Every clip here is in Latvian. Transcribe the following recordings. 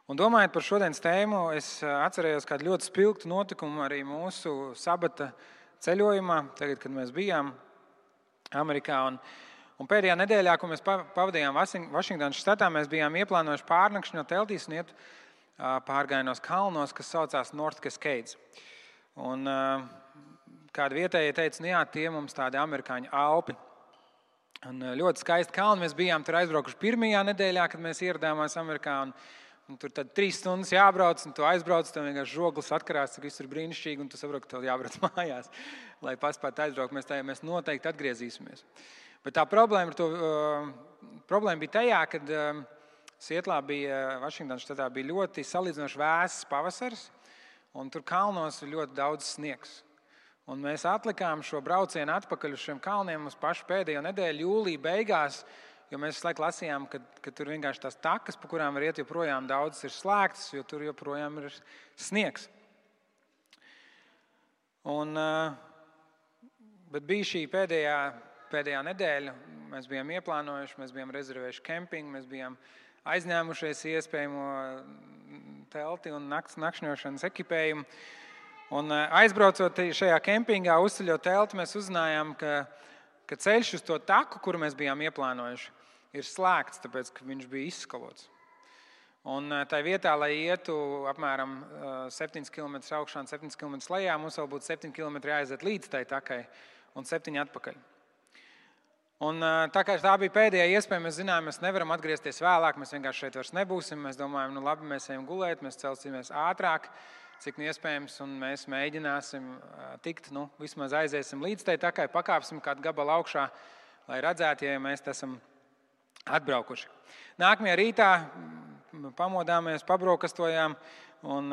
Un domājot par šodienas tēmu, es atcerējos kādu ļoti spilgtu notikumu arī mūsu sabata ceļojumā, tagad, kad mēs bijām Amerikā. Un pēdējā nedēļā, ko mēs pavadījām Vašingtonas štatā, mēs bijām ieplānojuši pārnakšņot teltīs un iet pārgājienos kalnos, kas saucās North Cascades. Un kādi vietējie teica, jā, tie mums tādi amerikāņu Alpi. Un ļoti skaisti kalni. Mēs bijām tur aizbraukuši pirmajā nedēļā, kad mēs ieradāmies Amerikā. Un tur tad 3 stundas jābrauc, un tu aizbrauc, tev vienkārši žoglis atkarās, cik viss ir brīnišķīgi, un tu saproti, ka tev jābrauc mājās, lai paspētu aizbraukt. Mēs noteikti atgriezīsimies. Bet tā problēma bija tajā, kad Sietlā bija, Vašingtonas štatā bija ļoti salīdzinoši vēss pavasaris, un tur kalnos ir ļoti daudz sniegs. Un mēs atlikām šo braucienu atpakaļ uz šiem kalniem uz pašu pēdējo nedēļu, jūlija beigās, jo mēs visu laiku lasījām, ka tur vienkārši tās takas, pa kurām var iet, joprojām daudzas ir slēgtas, jo tur joprojām ir sniegs. Bet bija šī pēdējā nedēļa, mēs bijām ieplānojuši, mēs bijām rezervējuši kempingu, mēs bijām aizņēmušies iespējamo telti un nakšņošanas ekipējumu. Un aizbraucot šajā kempingā, uzceļot telti, mēs uzzinājām, ka ceļš uz to taku, kuru mēs bijām ieplānojuši, ir slēgts, tāpēc, ka viņš bija izskalots. Un tā vietā, lai ietu apmēram 7 km augšā un 7 km lejā, mums vēl būtu 7 km jāaiziet līdz tai takai un 7 atpakaļ. Un tā kā tā bija pēdējā iespēja, mēs zinājām, mēs nevaram atgriezties vēlāk, mēs vienkārši šeit vairs nebūsim. Mēs domājam, labi, mēs ejam gulēt, mēs celsimies ātrāk, cik iespējams, un mēs mēģināsim tikt, vismaz aiziesim līdz tai takai, pakāpsim kādu gabalu augšā, lai redzētu, ja mēs esam atbraukuši. Nākamajā rītā pamodāmies, pabrokastojām un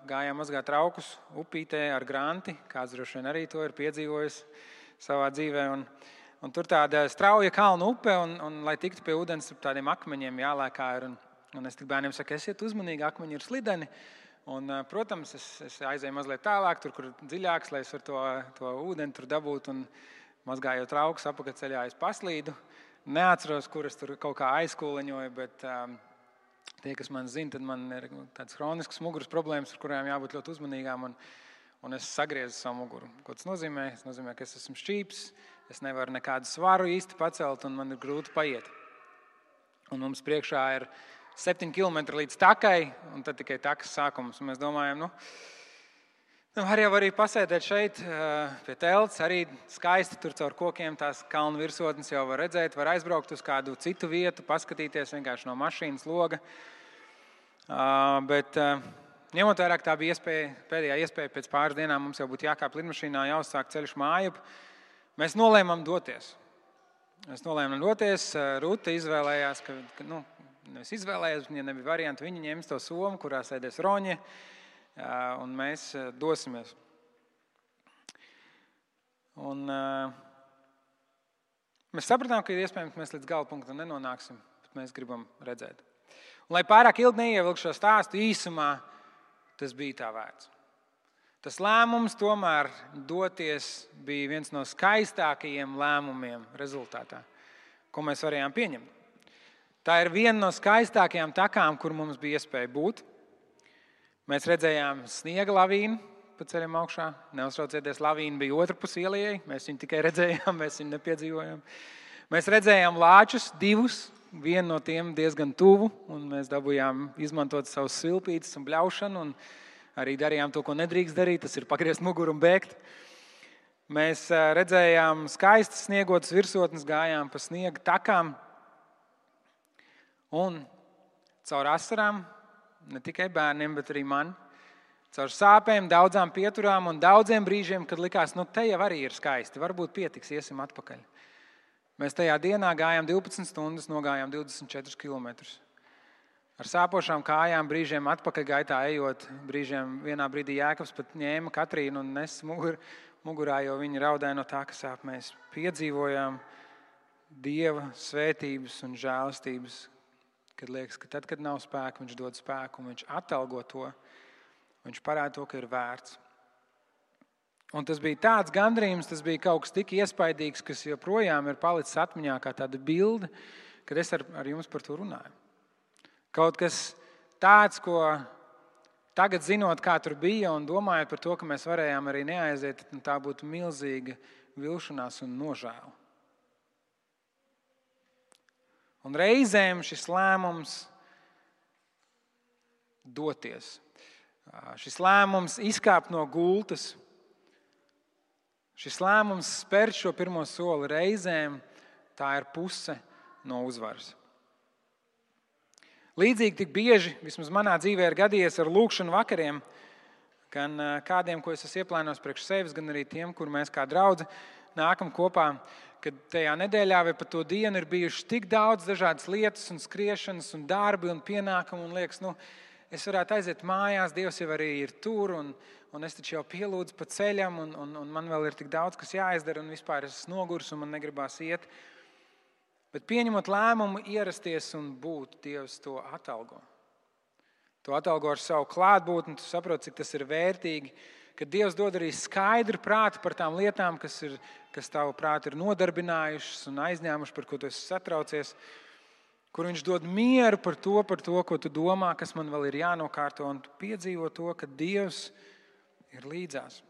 gājām mazgāt traukus upītē ar granti, kāds droši vien arī to ir piedzīvojis savā dzīvē. Un tur tāda strauja kalnu upe, un lai tiktu pie ūdens, tādiem akmeņiem jālēkā ir. Un es tik bērniem saku, esiet uzmanīgi, akmeņi ir slideni. Un, protams, es aizēju mazliet tālāk, tur, kur dziļāks, lai es varu to ūdeni tur dabūt. Un mazgājot traukus apakaļceļā, es paslīdu. Neatceros, kur es tur kaut kā aizkūleņoju, bet tie, kas man zina, tad man ir tādas hroniskas muguras problēmas, ar kurām jābūt ļoti uzmanīgām. Un es sagriezu savu muguru. Ko tas nozīmē? Tas nozīmē, ka es esmu šķīps, es nevaru nekādu svaru īsti pacelt un man ir grūti paiet. Un mums priekšā ir 7 km līdz takai, un tad tikai takas sākums. Un mēs domājam, var jau arī pasēdēt šeit pie telts, arī skaisti tur caur kokiem tās kalnu virsotnes jau var redzēt, var aizbraukt uz kādu citu vietu, paskatīties vienkārši no mašīnas loga. Bet ņemot vērā, ka tā bija pēdējā iespēja pēc pāris dienām, mums jau būtu jākāp lidmašīnā, jāuzsāk ceļš mājup. Mēs nolēmām doties. Ruta izvēlējās, nevis izvēlējās, ja nebija varianti, viņi ņems to somu, kurā sēdēs Roņa, un mēs dosimies. Un mēs sapratām, ka ir iespējams, ka mēs līdz gala punktam nenonāksim, bet mēs gribam redzēt. Un, lai pārāk ilgi neievilkšu šo stāstu īsumā, tas bija tā vērts. Tas lēmums tomēr doties bija viens no skaistākajiem lēmumiem rezultātā, ko mēs varējām pieņemt. Tā ir viena no skaistākajām takām, kur mums bija iespēja būt. Mēs redzējām sniega lavīnu pa ceļam augšā. Neuztraucieties, lavīna bija otrpus ielai. Mēs viņu tikai redzējām, mēs viņu nepiedzīvojām. Mēs redzējām lāčus, 2, vienu no tiem diezgan tuvu, un mēs dabūjām izmantot savus svilpītes un bļaušanu, un arī darījām to, ko nedrīkst darīt, tas ir pagriezt muguru un bēgt. Mēs redzējām skaistas sniegotas virsotnes, gājām pa sniega takām, un caur asarām, ne tikai bērniem, bet arī man, caur sāpēm, daudzām pieturām un daudziem brīžiem, kad likās, te jau arī ir skaisti, varbūt pietiks, iesim atpakaļ. Mēs tajā dienā gājām 12 stundas, nogājām 24 kilometrus. Ar sāpošām kājām, brīžiem atpakaļ gaitā ejot, brīžiem vienā brīdī Jēkabs pat ņēma Katrīnu un nes mugurā, jo viņa raudāja no tā, ka sāp. Mēs piedzīvojām Dieva svētības un žēlastības, kad liekas, ka tad, kad nav spēka, viņš dod spēku un viņš atalgo to, viņš parāda to, ka ir vērts. Un tas bija tāds gandrījums, tas bija kaut kas tik iespaidīgs, kas joprojām ir palicis atmiņā kā tāda bilde, kad es ar jums par to runāju. Kaut kas tāds, ko tagad zinot, kā tur bija un domājot par to, ka mēs varējām arī neaiziet, tā būtu milzīga vilšanās un nožēla. Un reizēm šis lēmums doties, šis lēmums izkāpt no gultas, šis lēmums spērt šo pirmo soli, reizēm tā ir puse no uzvaras. Līdzīgi tik bieži, vismaz manā dzīvē ir gadījies ar lūkšanu vakariem, gan kādiem, ko es esmu ieplānojis priekš sevis, gan arī tiem, kur mēs kā draudze nākam kopā, kad tajā nedēļā vai pat to dienu ir bijuši tik daudz dažādas lietas un skriešanas un darbi un pienākumi un liekas, es varētu aiziet mājās, Dievs jau arī ir tur un es taču jau pielūdzu pa ceļam un man vēl ir tik daudz, kas jāizdara un vispār es esmu nogurs un man negribās iet. Bet pieņemot lēmumu ierasties un būt, Dievs to atalgo. To atalgo ar savu klātbūtni, tu saproti, cik tas ir vērtīgi, ka Dievs dod arī skaidru prātu par tām lietām, kas tavu prātu ir nodarbinājušas un aizņēmušas, par ko tu esi satraucies, kur viņš dod mieru par to, ko tu domā, kas man vēl ir jānokārto, un tu piedzīvo to, ka Dievs ir līdzās.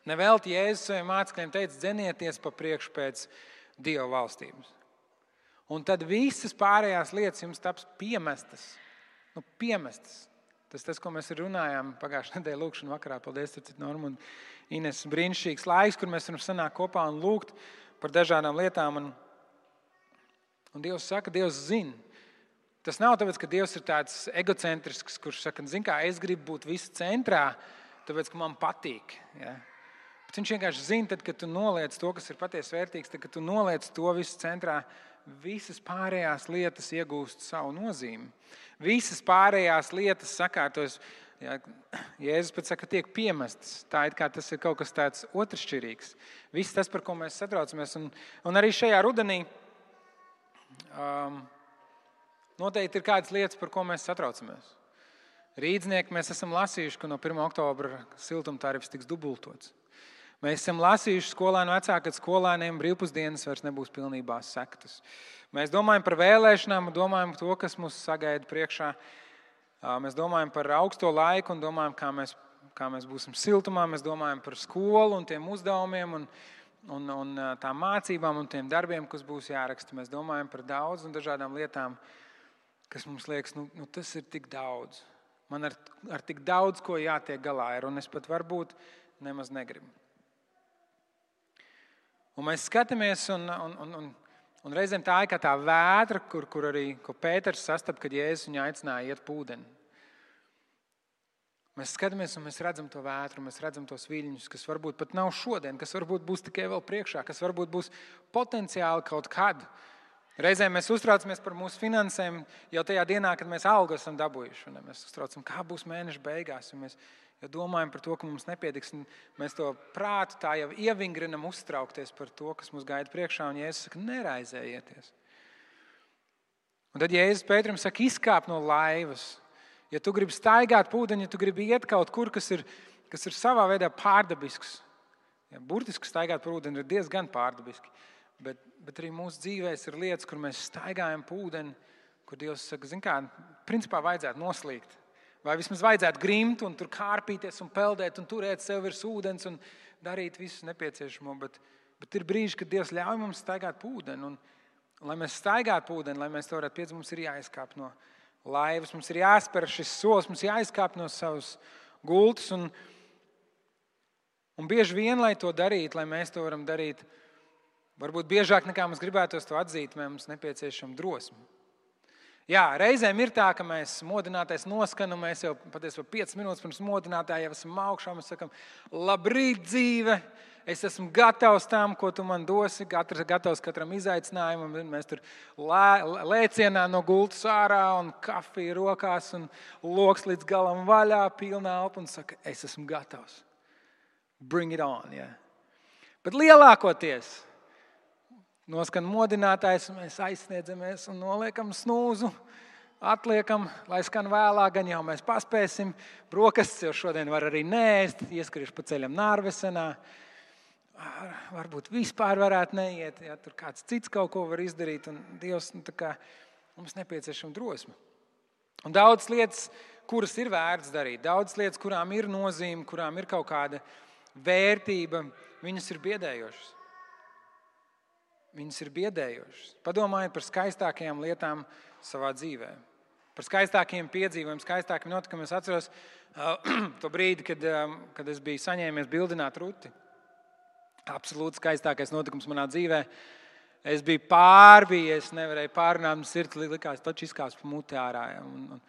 Nevelti Jēzus saviem mācekļiem teica, dzenieties pa priekšu pēc Dieva valstības. Un tad visas pārējās lietas jums taps piemestas. Piemestas. Tas, ko mēs runājām pagājušajā nedēļā lūkšanu vakarā. Paldies, Norma un Ines. Brīnišķīgs laiks, kur mēs varam sanākt kopā un lūgt par dažādām lietām. Un Dievs saka, Dievs zina. Tas nav tāpēc, ka Dievs ir tāds egocentrisks, kurš saka, kā es gribu būt visu centrā, tāpēc, ka man patīk. Ja? Bet viņš vienkārši zina, tad, kad tu noliec to, kas ir patiesi vērtīgs, tad, kad tu noliec to visu centrā, visas pārējās lietas iegūst savu nozīmi. Visas pārējās lietas sakārtos, ja, Jēzus pat saka, tiek piemestas. Tā it kā tas ir kaut kas tāds otršķirīgs. Viss tas, par ko mēs satraucamies. Un arī šajā rudenī noteikti ir kādas lietas, par ko mēs satraucamies. Rīdznieki mēs esam lasījuši, ka no 1. oktobra siltumtarifs tiks dubultots. Mēs esam lasījuši skolēnu vecāku, ka skolēniem brīvpusdienas vairs nebūs pilnībā sektas. Mēs domājam par vēlēšanām, domājam par to, kas mūs sagaida priekšā. Mēs domājam par augsto laiku un domājam, kā mēs būsim siltumā. Mēs domājam par skolu un tiem uzdevumiem un tām mācībām un tiem darbiem, kas būs jāraksta. Mēs domājam par daudz un dažādām lietām, kas mums liekas, tas ir tik daudz. Man ar tik daudz, ko jātiek galā ir, un es pat varbūt nemaz negribu. Un mēs skatāmies, un reizēm tā ir kā tā vētra, kur arī Pēters sastapa, kad Jēzus viņu aicināja iet pūdeni. Mēs skatāmies un mēs redzam to vētru, mēs redzam tos viļņus, kas varbūt pat nav šodien, kas varbūt būs tikai vēl priekšā, kas varbūt būs potenciāli kaut kad. Reizēm mēs uztraucamies par mūsu finansēm jau tajā dienā, kad mēs algu esam dabūjuši. Un mēs uztraucam, kā būs mēneša beigās, un mēs jau domājam par to, ka mums nepietiks. Mēs to prātu tā jau ievingrinam uztraukties par to, kas mums gaida priekšā. Un Jēzus saka, neraizējieties. Un tad Jēzus Pēterim saka, izkāp no laivas. Ja tu gribi staigāt pūdeņu, ja tu gribi iet kaut kur, kas ir savā veidā pārdabisks. Ja, burtiski staigāt par ūdeni ir diezgan pārdabiski. Bet arī mūsu dzīvēs ir lietas, kur mēs staigājam pūdeni, kur Dievs saka, principā vajadzētu noslīgt. Vai vismaz vajadzētu grimt un tur kārpīties un peldēt un turēt sev virs ūdens un darīt visu nepieciešamo. Bet ir brīži, kad Dievs ļauj mums staigāt pūdeni. Un lai mēs staigātu pūdeni, lai mēs to varētu piedzīvot, mums ir jāizkāp no laivas, mums ir jāspēr šis solis, mums jāizkāp no savas gultas. Un bieži vien, lai to darītu, lai mēs to varam darīt, varbūt biežāk nekā mums gribētos to atzīt, mums nepieciešama drosme. Jā, reizēm ir tā, ka mēs modinātais noskan, un mēs jau patiesībā 5 minūtes pirms modinātāja jau esam augšā, mēs sakam, labrīt dzīve, es esmu gatavs tam, ko tu man dosi, gatavs katram izaicinājumam, mēs tur lēcienā no gultas ārā un kafija rokās un loks līdz galam vaļā, pilnā elpa un saka, es esmu gatavs. Bring it on, jā. Bet lielākoties noskan modinātājs, un mēs aizsniedzamies un noliekam snūzu, atliekam, lai skan vēlāk, gan jau mēs paspēsim. Brokastis jau šodien var arī neēst, ieskriešu pa ceļam Nārvesenā. Varbūt vispār varētu neiet, ja tur kāds cits kaut ko var izdarīt, un Dievs, mums nepieciešama drosme. Un daudz lietas, kuras ir vērts darīt, daudz lietas, kurām ir nozīme, kurām ir kaut kāda vērtība, viņas ir biedējošas. Viņas ir biedējošas. Padomājiet par skaistākajām lietām savā dzīvē. Par skaistākiem piedzīvojumiem, skaistākiem notikumiem. Es atceros to brīdi, kad es biju saņēmies bildināt Ruti. Absolūti skaistākais notikums manā dzīvē. Es biju pārbijies, nevarēju pārrunāt, man sirds likās, taču izkāps pa muti ārā. Un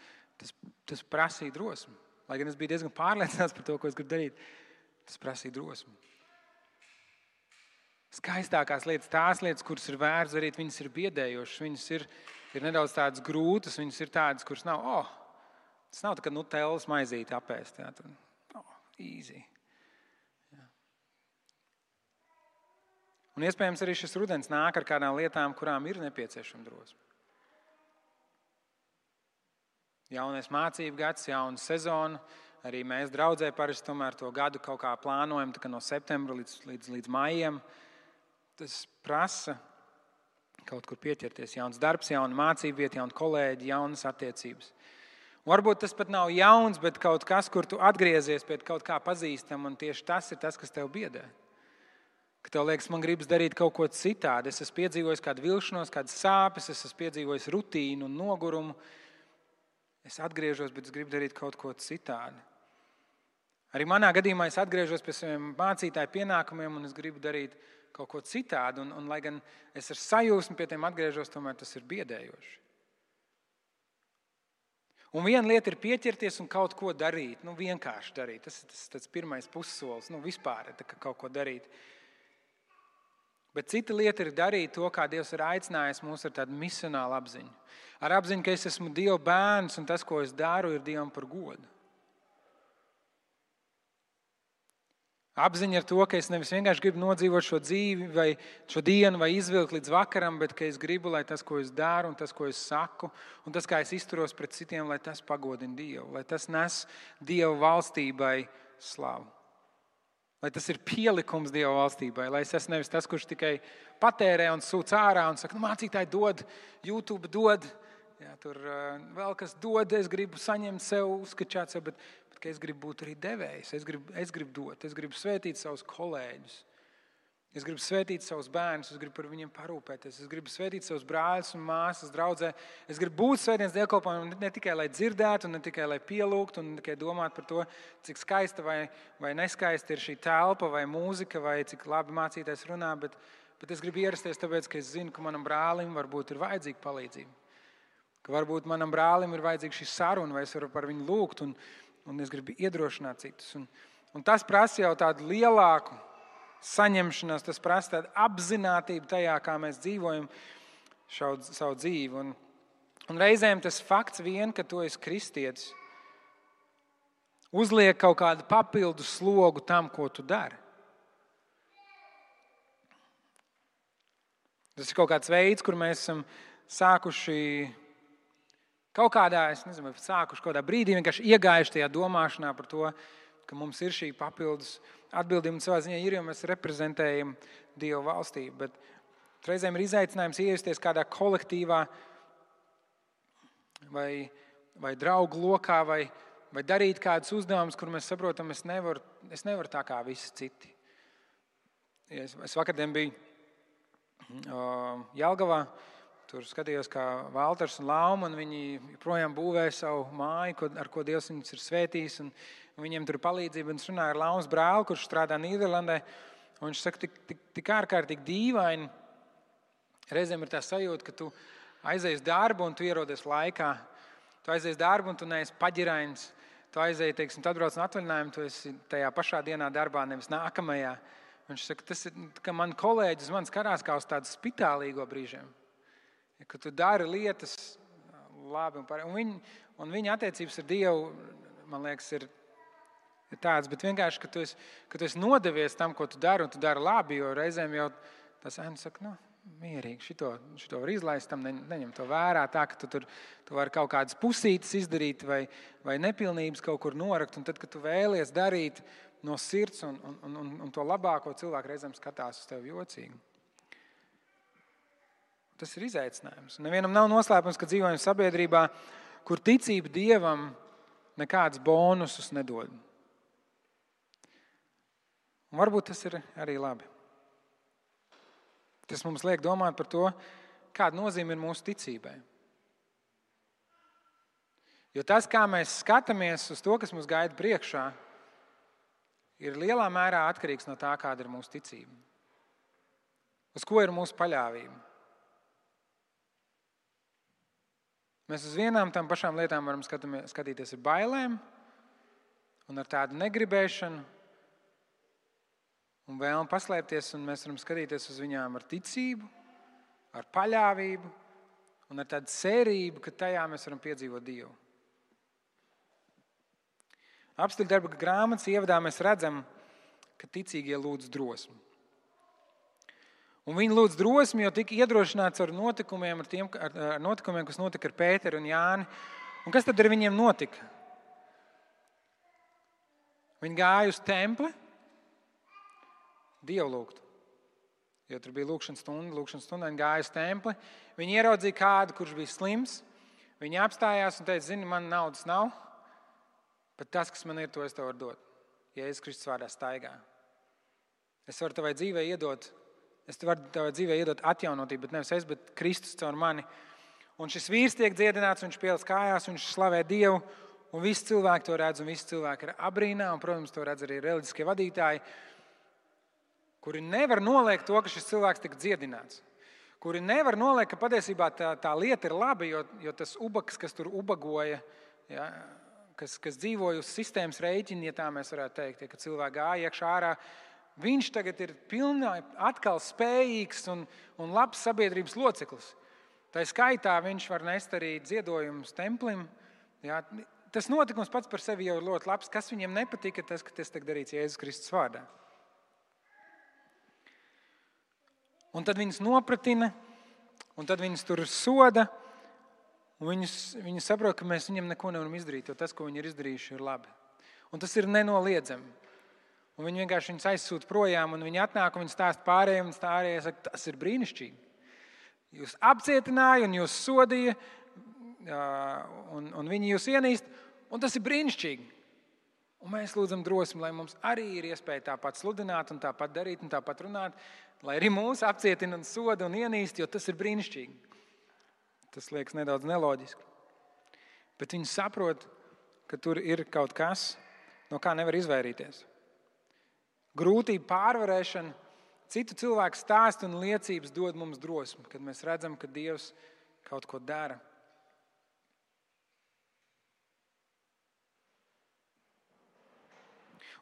tas prasīja drosmi. Lai gan es biju diezgan pārliecināts par to, ko es gribu darīt, tas prasīja drosmi. Skaistākās lietas, tās lietas, kuras ir vērts darīt, viņas ir biedējošas, viņas ir nedaudz tādas grūtas, viņas ir tādas, kuras nav, tas nav tā, ka nutellas maizīti apēst, jā, tad, easy. Jā. Un iespējams arī šis rudens nāk ar kādām lietām, kurām ir nepieciešama drosme. Jaunais mācību gads, jauna sezona, arī mēs draudzē parasti tomēr to gadu kaut kā plānojam, tā kā no septembra līdz maijam. Tas prasa kaut kur pieķerties. Jauns darbs, jauna mācība vieta, jauni kolēģi, jaunas attiecības. Un varbūt tas pat nav jauns, bet kaut kas, kur tu atgriezies pie kaut kā pazīstam, un tieši tas ir tas, kas tev biedē. Ka tev liekas, man gribas darīt kaut ko citādi. Es esmu piedzīvojis kādu vilšanos, kādas sāpes, es esmu piedzīvojis rutīnu un nogurumu. Es atgriežos, bet es gribu darīt kaut ko citādi. Arī manā gadījumā es atgriežos pie saviem mācītāju pienākumiem, un es gribu darīt kaut ko citādi, un lai gan es ar sajūsmu pie tiem atgriežos, tomēr tas ir biedējoši. Un viena lieta ir pieķerties un kaut ko darīt, vienkārši darīt. Tas pirmais pussolis, vispār ir kaut ko darīt. Bet cita lieta ir darīt to, kā Dievs ir aicinājis mūs ar tādu misionālu apziņu. Ar apziņu, ka es esmu Dieva bērns, un tas, ko es daru, ir Dievam par godu. Apziņa ar to, ka es nevis vienkārši gribu nodzīvot šo dzīvi vai šo dienu vai izvilkt līdz vakaram, bet ka es gribu, lai tas, ko es daru un tas, ko es saku, un tas, kā es izturos pret citiem, lai tas pagodina Dievu, lai tas nes Dieva valstībai slavu. Lai tas ir pielikums Dieva valstībai, lai es esmu nevis tas, kurš tikai patērē un sūc ārā un saka, mācītāji dod, YouTube dod, jā, tur vēl kas dod, es gribu saņemt sev, uzskačāt sev, bet ka es gribu būt arī devējs, es gribu dot, es gribu svētīt savus kolēģus, es gribu svētīt savus bērnus, es gribu par viņiem parūpēties, es gribu svētīt savus brāļus un māsas draudzē, es gribu būt svētdienas dievkalpojumā ne tikai, lai dzirdētu, ne tikai, lai pielūgtu, un ne tikai domāt par to, cik skaista vai neskaista ir šī telpa vai mūzika, vai cik labi mācītājs runā, bet es gribu ierasties tāpēc, ka es zinu, ka manam brālim varbūt ir vajadzīga palīdzība, ka varbūt manam brālim ir vajadzīga šī saruna, vai es varu par viņu lūgt, un es gribu iedrošināt citus. Un tas prasa jau tādu lielāku saņemšanos, tas prasa tādu apzinātību tajā, kā mēs dzīvojam savu dzīvi. Un reizēm tas fakts vien, ka tu esi kristietis, uzliek kaut kādu papildu slogu tam, ko tu dari. Tas ir kaut kāds veids, kur mēs esam sākuši kaut kādā, es nezinu, sākuši kaut kādā brīdī vienkārši iegājuši tajā domāšanā par to, ka mums ir šī papildus atbildība un savā ziņā ir, jo mēs reprezentējam Dieva valstību. Bet reizēm ir izaicinājums iejusties kādā kolektīvā vai draugu lokā vai darīt kādus uzdevumus, kur mēs saprotam, es nevaru tā kā visi citi. Es vakardien biju Jelgavā. Tur skatījos, kā Valters un Lauma, un viņi joprojām būvē savu māju, ar ko Dievs viņus ir svētījis, un viņiem tur ir palīdzība. Un es runāju ar Laumas brāli, kurš strādā Nīderlandē, un viņš saka, tik ārkārtīgi dīvaini. Reizēm ir tā sajūta, ka tu aizies darbu un tu ierodies laikā. Tu aizies darbu un tu neesi paģirains. Tu aizies, teiksim, tu atbrauc no atvaļinājuma, tu esi tajā pašā dienā darbā, nevis nākamajā. Viņš saka, tas ir, ka man kolēģis man skatās kā uz tādu spitālīgo brīžiem. Ka tu dari lietas labi un viņa attiecības ar Dievu, man liekas, ir tāds, bet vienkārši, ka tu esi nodevies tam, ko tu dari, un tu dari labi, jo reizēm jau tas ēna saka, mierīgi, šito var izlaist, tam neņem to vērā, tā, ka tu vari kaut kādas pusītes izdarīt vai nepilnības kaut kur norakt, un tad, kad tu vēlies darīt no sirds un to labāko, cilvēku reizēm skatās uz tevi jocīgi. Tas ir izaicinājums. Nevienam nav noslēpums, ka dzīvojam sabiedrībā, kur ticība Dievam nekādus bonusus nedod. Un varbūt tas ir arī labi. Tas mums liek domāt par to, kāda nozīme ir mūsu ticībai. Jo tas, kā mēs skatāmies uz to, kas mums gaida priekšā, ir lielā mērā atkarīgs no tā, kāda ir mūsu ticība. Uz ko ir mūsu paļāvība. Mēs uz vienām tam pašām lietām varam skatīties ar bailēm un ar tādu negribēšanu un vēlmu paslēpties, un mēs varam skatīties uz viņām ar ticību, ar paļāvību un ar tādu cerību, ka tajā mēs varam piedzīvot Dievu. Apstuļu darba grāmatas ievadā mēs redzam, ka ticīgie lūdz drosmi. Un viņi lūdz drosmi, jo tika iedrošināts ar notikumiem, kas notika ar Pēteru un Jāni. Un kas tad ar viņiem notika? Viņi gāja uz templi, Dievu lūgt. Jo tur bija lūgšanas stunda, viņi gāja uz templi. Viņi ieraudzīja kādu, kurš bija slims. Viņi apstājās un teica, zini, man naudas nav, bet tas, kas man ir, to es tev varu dot. Jēzus Kristus vārdā staigā. Es varu tavai dzīvē iedot atjaunotību, bet nevis es, bet Kristus caur mani. Un šis vīrs tiek dziedināts, viņš pielas kājās, viņš slavē Dievu, un visi cilvēki to redz, un visi cilvēki ir abrīnā, un, protams, to redz arī reliģiskie vadītāji, kuri nevar noliegt to, ka šis cilvēks tika dziedināts. Kuri nevar noliegt, ka patiesībā tā lieta ir laba, jo tas ubaks, kas tur ubagoja, ja, kas dzīvoja uz sistēmas rēķina, ja tā mēs varētu teikt, ja, ka cilvēki gāja iekšā ārā, viņš tagad ir atkal spējīgs un labs sabiedrības loceklis. Tā skaitā viņš var nest arī ziedojumus templim. Jā, tas notikums pats par sevi jau ir ļoti labs. Kas viņiem nepatika, tas, ka tas tiek darīts Jēzus Kristus vārdā. Un tad viņus nopratina, un tad viņus tur soda, un viņi saprot, ka mēs viņiem neko nevaram izdarīt, jo tas, ko viņi ir izdarījuši, ir labi. Un tas ir nenoliedzami. Un viņi vienkārši viņus aizsūta projām, un viņi atnāk un viņi stāsta pārējiem, un pārējie saka, tas ir brīnišķīgi. Jūs apcietināja un jūs sodīja, un viņi jūs ienīst, un tas ir brīnišķīgi. Un mēs lūdzam drosmi, lai mums arī ir iespēja tāpat sludināt un tāpat darīt un tāpat runāt, lai arī mūs apcietina un soda un ienīst, jo tas ir brīnišķīgi. Tas liekas nedaudz neloģiski. Bet viņi saprot, ka tur ir kaut kas, no kā nevar izvairīties. Grūtību pārvarēšana, citu cilvēku stāstu un liecības dod mums drosmi, kad mēs redzam, ka Dievs kaut ko dara.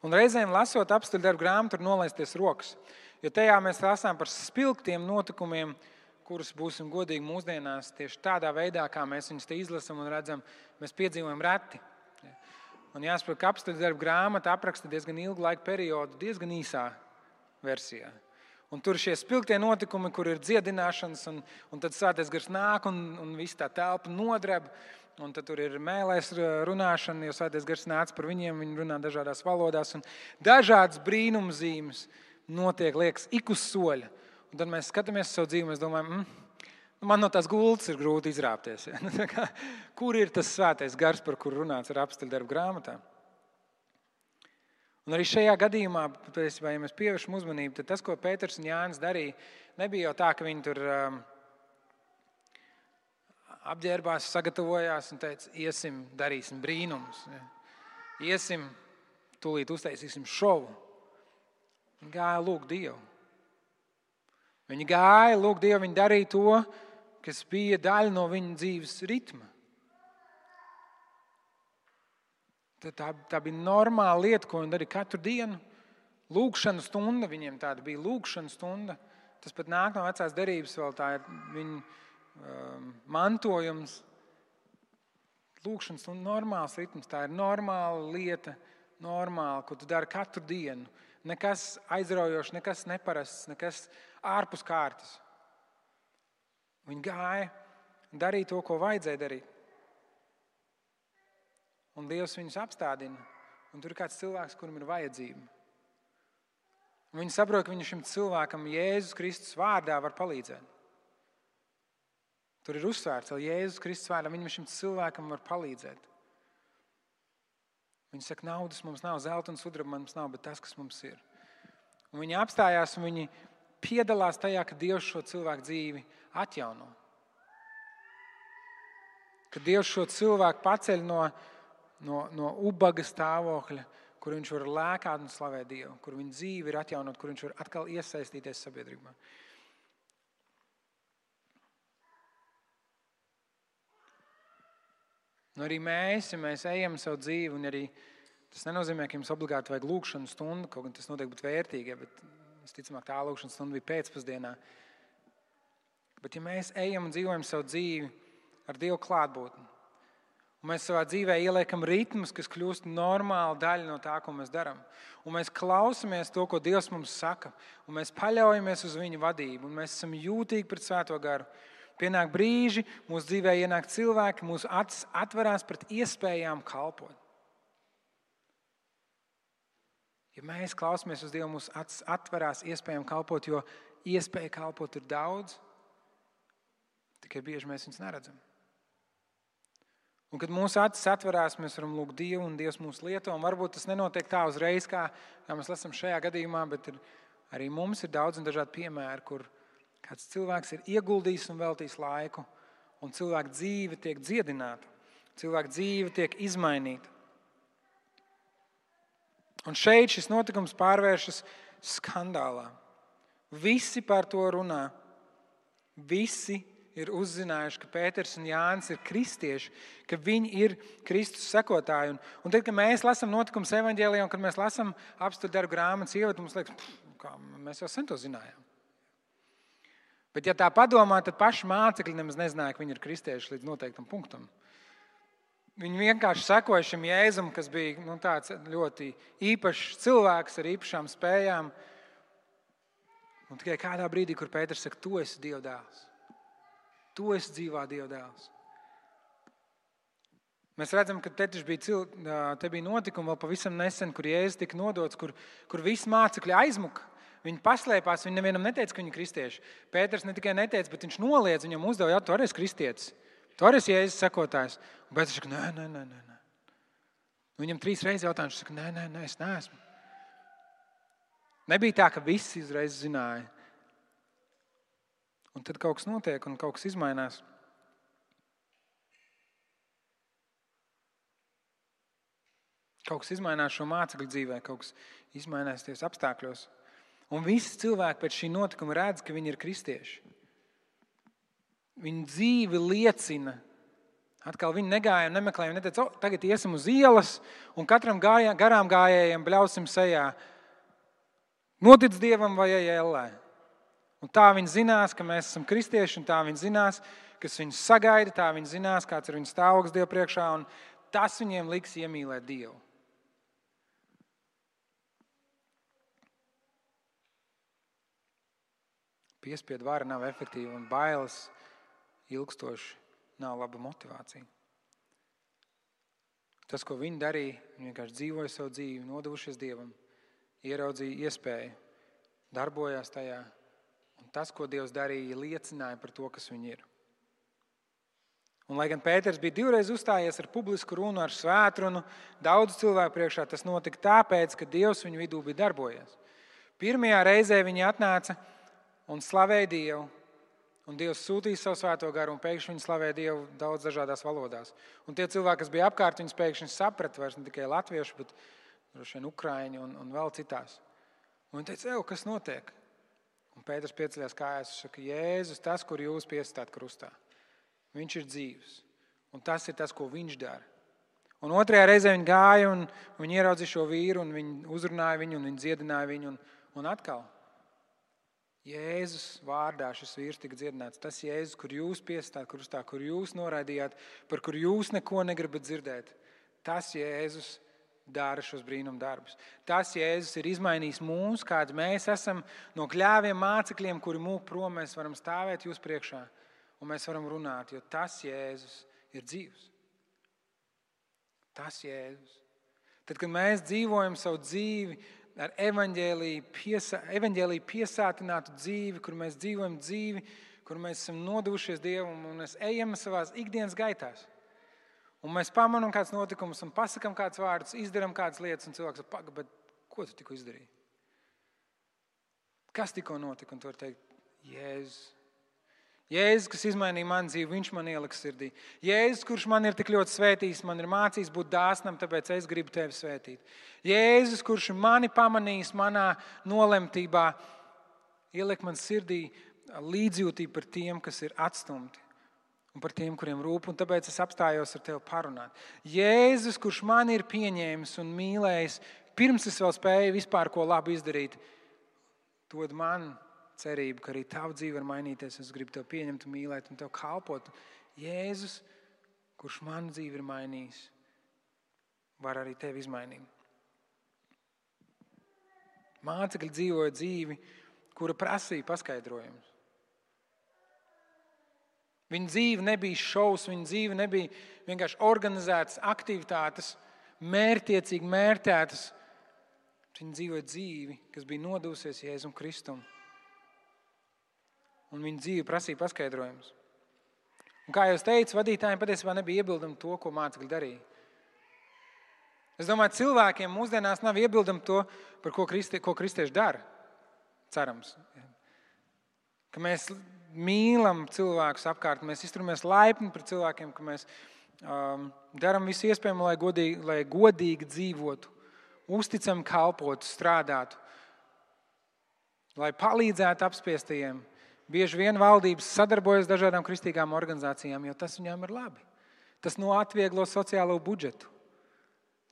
Un reizēm lasot apstuļu darbu grāmatu, tur nolaisties rokas, jo tajā mēs lasām par spilgtiem notikumiem, kurus būsim godīgi mūsdienās tieši tādā veidā, kā mēs viņus te izlasam un redzam, mēs piedzīvojam reti. Un jāsaprot, ka apstuļu darbu grāmata apraksta diezgan ilgu laiku periodu, diezgan īsā versijā. Un tur šie spilgtie notikumi, kur ir dziedināšanas, un tad svētais gars nāk, un viss tā telpa nodreb, un tad tur ir mēlēs runāšana, jo svētais gars nāca par viņiem, viņi runā dažādās valodās, un dažādas brīnumzīmes notiek, liekas, ik uz soļa. Un tad mēs skatāmies savu dzīvi, mēs domājam, man no tās gultas ir grūti izrāpties. Ja? Kur ir tas svētais gars, par kuru runāts ar apstuļu darbu grāmatā? Un arī šajā gadījumā, ja mēs pievēršam uzmanību, tad tas, ko Pēters un Jānis darīja, nebija jau tā, ka viņi tur apģērbās, sagatavojās un teica, iesim, darīsim brīnumus. Ja? Iesim, tūlīt uztaisīsim šovu. Viņi gāja lūgt Dievu. Viņi gāja lūgt Dievu, viņi darīja to, kas bija daļa no viņa dzīves ritma. Tā bija normāla lieta, ko viņi darīja katru dienu. Lūgšana stunda, viņiem tāda bija lūgšana stunda. Tas pat nāk no vecās derības, vēl tā ir viņa mantojums. Lūgšana stunda, normāls ritms, tā ir normāla lieta, normāla, ko tu dari katru dienu. Nekas aizraujošs, nekas neparasts, nekas ārpus kārtas. Viņi gāja un darīja to, ko vajadzēja darīt. Un Dievs viņus apstādina. Un tur ir kāds cilvēks, kuram ir vajadzība. Un viņi saprot, ka viņi šim cilvēkam Jēzus Kristus vārdā var palīdzēt. Tur ir uzsvērts, ka Jēzus Kristus vārdā viņam šim cilvēkam var palīdzēt. Viņi saka, naudas mums nav, zelta un sudraba mums nav, bet tas, kas mums ir. Un viņi apstājās un viņi piedalās tajā, ka Dievs šo cilvēku dzīvi atjauno. Ka Dievs šo cilvēku paceļ no ubaga stāvokļa, kur viņš var lēkāt un slavēt Dievu, kur viņa dzīve ir atjaunot, kur viņš var atkal iesaistīties sabiedrībā. Un arī mēs, ja mēs ejam savu dzīvi, un arī tas nenozīmē, ka jums obligāti vajag lūkšanu stundu, kaut gan tas noteikti būtu vērtīgi, bet visticamāk tā lūkšana stunda bija pēcpusdienā. Bet ja mēs ejam un dzīvojam savu dzīvi ar Dievu klātbūtni, un mēs savā dzīvē ieliekam ritmus, kas kļūst normāla daļa no tā, ko mēs darām, un mēs klausamies to, ko Dievs mums saka, un mēs paļaujamies uz viņa vadību, un mēs esam jūtīgi pret Svēto garu, pienāk brīži, mūsu dzīvē ienāk cilvēki, mūsu acis atverās pret iespējām kalpot. Ja mēs klausamies uz Dievu, mūsu acis atverās iespējām kalpot, jo iespēja kalpot ir daudz, tikai bieži mēs viņus neredzam. Un kad mūsu acis atverās, mēs varam lūgt Dievu, un Dievs mūs lieto, un varbūt tas nenotiek tā uzreiz, kā mēs lasām šajā gadījumā, bet arī mums ir daudz un dažādi piemēri, kur kāds cilvēks ir ieguldījis un veltījis laiku, un cilvēka dzīve tiek dziedināta, cilvēka dzīve tiek izmainīta. Un šeit šis notikums pārvēršas skandālā. Visi par to runā. Visi ir uzzinājuši, ka Pēters un Jānis ir kristieši, ka viņi ir Kristus sekotāji. Un tad, kad mēs lasām notikumus evaņģēlijā, un kad mēs lasām apstuļu darbu grāmatas ievadu, mums liekas, mēs jau sen to zinājām. Bet, ja tā padomā, tad paši mācekļi nemaz nezināja, ka viņi ir kristieši līdz noteiktam punktam. Viņi vienkārši sekoja šim Jēzum, kas bija tāds ļoti īpašs cilvēks ar īpašām spējām. Un tikai kādā brīdī, kur Pēters saka, tu esi Dieva dēls. Tu esi dzīvā Dieva dēls. Mēs redzam, ka te bija notikumi vēl pavisam nesen, kur Jēzus tika nodots, kur visi mācekļi aizmuka. Viņi paslēpās, viņi nevienam neteica, ka viņi ir kristieši. Pēters ne tikai neteica, bet viņš noliedz, viņam uzdeva, tu arī esi kristietis. Tu arī esi Jēzus sekotājs. Un Pēters saka, nē. Viņam 3 reizes jautāja, viņš saka, nē, es neesmu. Nebija tā, ka visi uzreiz zināja. Un tad kaut kas notiek un kaut kas izmainās. Kaut kas izmainās šo mācekļu dzīvē, kaut kas izmainās ties apstākļos. Un visi cilvēki pēc šī notikuma redz, ka viņi ir kristieši. Viņu dzīve liecina. Atkal viņi negāja un nemeklēja, viņi neteica, tagad iesim uz ielas un katram garām gājējiem bļausim sejā. Notic Dievam vai ej ellē. Un tā viņi zinās, ka mēs esam kristieši, un tā viņi zinās, kas viņus sagaida, tā viņi zinās, kāds ir viņu stāvoklis Dievu priekšā, un tas viņiem liks iemīlēt Dievu. Piespiedu vara nav efektīva un bailes ilgstoši nav laba motivācija. Tas, ko viņi darīja, viņi vienkārši dzīvoja savu dzīvi, nodevušies Dievam, ieraudzīja iespēju, darbojās tajā. Un tas, ko Dievs darīja, liecināja par to, kas viņi ir. Un, lai gan Pēters bija 2 reizes uzstājies ar publisku runu, ar svētrunu, daudz cilvēku priekšā, tas notika tāpēc, ka Dievs viņu vidū bija darbojies. Pirmajā reizē viņi atnāca un slavēja Dievu, un Dievs sūtīja savu Svēto garu, un pēkšņi viņi slavēja Dievu daudz dažādās valodās. Un tie cilvēki, kas bija apkārt, viņus pēkšņi saprata vairs ne tikai latviešu, bet droši vien ukraiņu un vēl citās. Un viņi teica, kas notiek? Un Pēters pieceļās kājās un saka, Jēzus, tas, kur jūs piesitāt krustā, viņš ir dzīvs. Un tas ir tas, ko viņš dara. Un 2. reizē viņi gāja un viņi ieraudzīja šo vīru, un viņi uzrunāja viņu, un viņi dziedināja viņu, un atkal. Jēzus vārdā šis vīrs tika dziedināts. Tas Jēzus, kur jūs piesitāt krustā, kur jūs noraidījāt, par kur jūs neko negribat dzirdēt. Tas Jēzus dara šos brīnum darbus. Tas Jēzus ir izmainījis mūs, kāds mēs esam no kļāviem mācekļiem, kuri mūk prom, mēs varam stāvēt jūs priekšā un mēs varam runāt, jo tas Jēzus ir dzīvs. Tas Jēzus. Tad, kad mēs dzīvojam savu dzīvi ar evaņģēliju piesātinātu dzīvi, kur mēs dzīvojam dzīvi, kur mēs esam nodevušies Dievam un mēs ejam savās ikdienas gaitās. Un mēs pamanām kāds notikums un pasakam kāds vārdus, izdaram kādas lietas un cilvēks saka, paga, bet ko tu tikko izdarīji? Kas tikko notika? Un tu vari teikt, Jēzus. Jēzus, kas izmainīja manu dzīvi, viņš man ieliks sirdī. Jēzus, kurš man ir tik ļoti svētījis, man ir mācījis būt dāsnam, tāpēc es gribu tevi svētīt. Jēzus, kurš mani pamanījis manā nolemtībā, ieliek man sirdī līdzjūtību par tiem, kas ir atstumti un par tiem, kuriem rūp, un tāpēc es apstājos ar tevi parunāt. Jēzus, kurš mani ir pieņēmis un mīlējis, pirms es vēl spēju vispār ko labu izdarīt, dod man cerību, ka arī tava dzīve var mainīties. Es gribu tevi pieņemt un mīlēt un tev kalpot. Jēzus, kurš manu dzīvi ir mainījis, var arī tevi izmainīt. Mācekļi dzīvoja dzīvi, kura prasīja paskaidrojumus. Viņa dzīve nebija šovs, viņa dzīve nebija vienkārši organizētas aktivitātes, mērķtiecīgi mērķētas. Viņa dzīvoja dzīvi, kas bija nodevusies Jēzum Kristum. Un viņa dzīve prasīja paskaidrojumus. Un kā jau es teicu, vadītājiem patiesībā nebija iebildumi to, ko mācekļi darīja. Es domāju, cilvēkiem mūsdienās nav iebildumi to, par ko kristieši dara. Cerams. Ka mēs mīlam cilvēkus apkārt, mēs izturamies laipni pret cilvēkiem, ka mēs darām visu iespējamo, lai godīgi dzīvotu, uzticam kalpotu, strādātu, lai palīdzētu apspiestajiem. Bieži vien valdības sadarbojas dažādām kristīgām organizācijām, jo tas viņām ir labi. Tas atvieglo sociālo budžetu,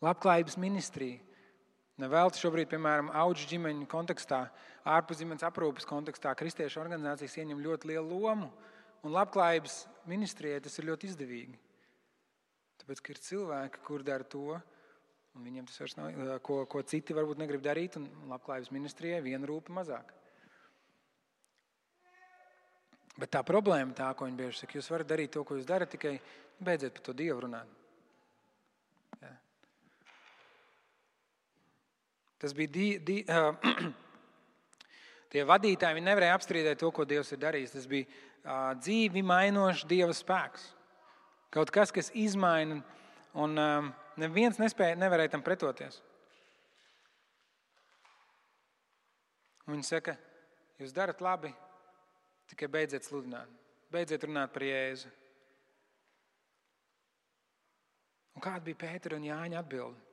labklājības ministriju. Nevelti šobrīd, piemēram, auģu ģimeņu kontekstā, ārpus ģimenes aprūpes kontekstā, kristiešu organizācijas ieņem ļoti lielu lomu, un labklājības ministrijai tas ir ļoti izdevīgi. Tāpēc, ka ir cilvēki, kur dara to, un viņiem tas vairs nav, ko citi varbūt negrib darīt, un labklājības ministrijai viena rūpa mazāk. Bet tā problēma tā, ko viņi bieži saka, jūs varat darīt to, ko jūs darat, tikai beidziet par to Dievu runāt. Jā. Tas bija tie vadītāji, viņi nevarēja apstrīdēt to, ko Dievs ir darījis. Tas bija dzīvi mainošs Dieva spēks. Kaut kas, kas izmaina, un neviens nevarēja tam pretoties. Un viņi saka, jūs darat labi, tikai beidziet sludināt. Beidziet runāt par Jēzu. Un kāda bija Pētera un Jāņa atbilde?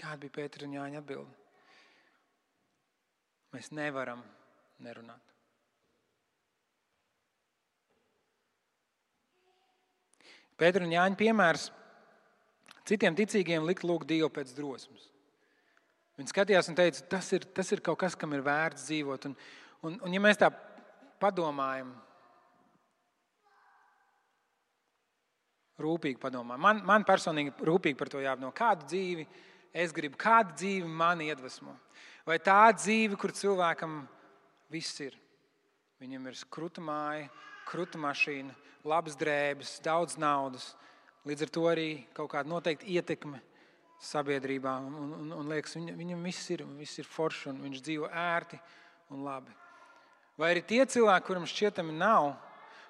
Kāda bija Pētera un Jāņa atbilde? Mēs nevaram nerunāt. Pētera un Jāņa piemērs citiem ticīgiem likt lūgt Dievu pēc drosmes. Viņi skatījās un teica, tas ir kaut kas, kam ir vērts dzīvot. Un ja mēs tā padomājam, rūpīgi padomājam, man personīgi rūpīgi par to jāapdomā, kādu dzīvi es gribu, kāda dzīve mani iedvesmo. Vai tā dzīve, kur cilvēkam viss ir. Viņam ir kruta māja, kruta mašīna, labas drēbes, daudz naudas. Līdz ar to arī kaut kāda noteikta ietekme sabiedrībā. Un liekas, viņam viss ir forši un viņš dzīvo ērti un labi. Vai arī tie cilvēki, kuram šķietami nav,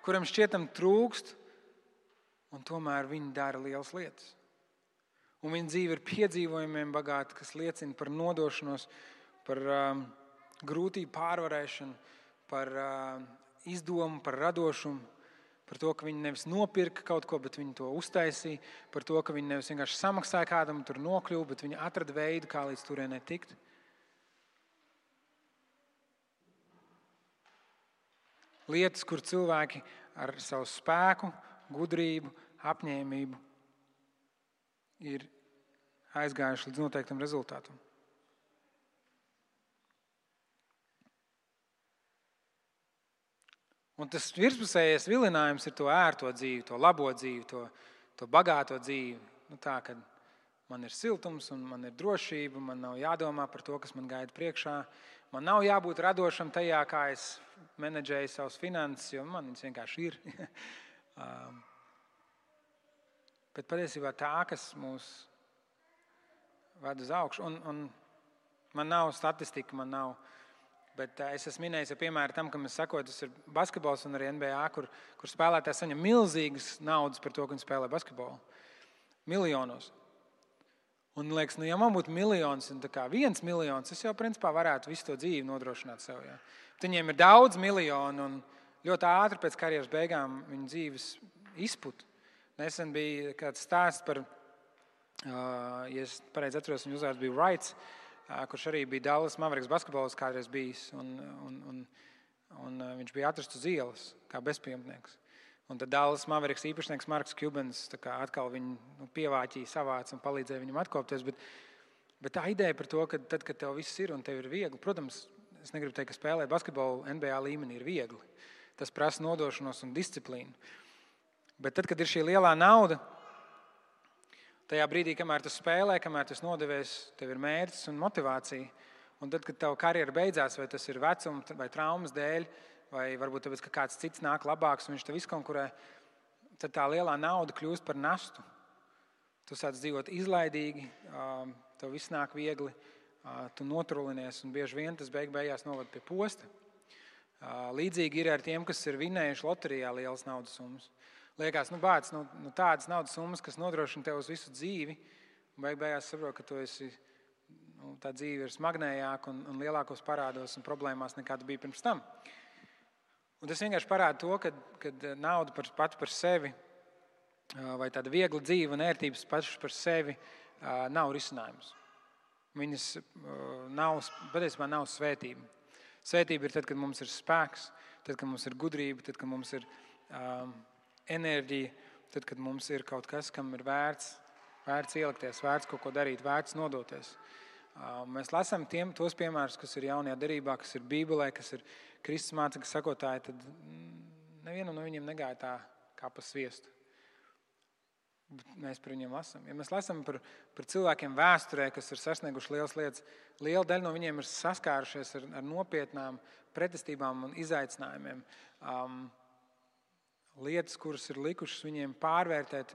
kuram šķietami trūkst, un tomēr viņi dara lielas lietas. Un viņa dzīve ir piedzīvojumiem bagāta, kas liecina par nodošanos, par grūtību pārvarēšanu, par izdomu, par radošumu, par to, ka viņi nevis nopirka kaut ko, bet viņi to uztaisīja, par to, ka viņi nevis vienkārši samaksāja kādam un tur nokļuva, bet viņi atrada veidu, kā līdz turienei tikt. Lietas, kur cilvēki ar savu spēku, gudrību, apņēmību ir aizgājuši līdz noteiktam rezultātam. Un tas virspusējais vilinājums ir to ērto dzīvi, to labo dzīvi, to bagāto dzīvi. Tā, kad man ir siltums un man ir drošība, man nav jādomā par to, kas man gaida priekšā. Man nav jābūt radošam tajā, kā es menedžēju savus finanses, jo man viņas vienkārši ir. Bet patiesībā tā, kas mūs ved uz augšu. Un man nav statistika, bet es esmu minējis, piemēram, tam, kam es sakoju, tas ir basketbols un arī NBA, kur spēlētāji saņem milzīgas naudas par to, ka viņi spēlē basketbolu. Miljonos. Un liekas, ja man būtu miljons, un tā kā 1 miljons, es jau principā varētu visu to dzīvi nodrošināt sev. Ja. Viņiem ir daudz miljonu un ļoti ātri pēc karjeras beigām viņu dzīves izput. Nesen bija kāds stāsts par, ja es pareizi atceros, viņa uzvārds bija Wrights, kurš arī bija Dallas Mavericks basketbols kādreiz bijis. Un viņš bija atrasts uz ielas kā bezpajumtnieks. Un tad Dallas Mavericks īpašnieks Marks Cubans atkal viņu pievāķīja, savāca un palīdzēja viņam atkopties. Bet tā ideja par to, ka tad, kad tev viss ir un tev ir viegli, protams, es negribu teikt, ka spēlēt basketbolu NBA līmenī ir viegli. Tas prasa nodošanos un disciplīnu. Bet tad, kad ir šī lielā nauda, tajā brīdī, kamēr tu spēlē, kamēr tu nodevies, tev ir mērķis un motivācija. Un tad, kad tava karjera beidzās, vai tas ir vecuma vai traumas dēļ, vai varbūt tāpēc, ka kāds cits nāk labāks un viņš tev izkonkurē, tad tā lielā nauda kļūst par nastu. Tu sāc dzīvot izlaidīgi, tev viss nāk viegli, tu notrulinies un bieži vien tas beigās novad pie posta. Līdzīgi ir ar tiem, kas ir vinējuši loterijā lielas naudas summas. Liekas, tādas naudas summas, kas nodrošina tev uz visu dzīvi, un beigās saprot, ka tu esi, tā dzīve ir smagnējāka un lielākos parādos un problēmās nekā tu biji pirms tam. Un tas vienkārši parāda to, ka nauda pati par sevi vai tāda viegla dzīve un ērtības pašas par sevi nav risinājums. Viņas patiesībā nav svētība. Svētība ir tad, kad mums ir spēks, tad, kad mums ir gudrība, tad, kad mums ir enerģija, tad, kad mums ir kaut kas, kam ir vērts ielikties, vērts kaut ko darīt, vērts nodoties. Mēs lasām tos piemērus, kas ir jaunajā derībā, kas ir Bībelē, kas ir Kristus mācekļu sakotāji, tad nevienam no viņiem negāja tā kā pa sviestu. Mēs par viņiem lasām. Ja mēs lasām par cilvēkiem vēsturē, kas ir sasnieguši lielas lietas, liela daļa no viņiem ir saskārušies ar nopietnām pretestībām un izaicinājumiem. Lietas, kuras ir likušas viņiem pārvērtēt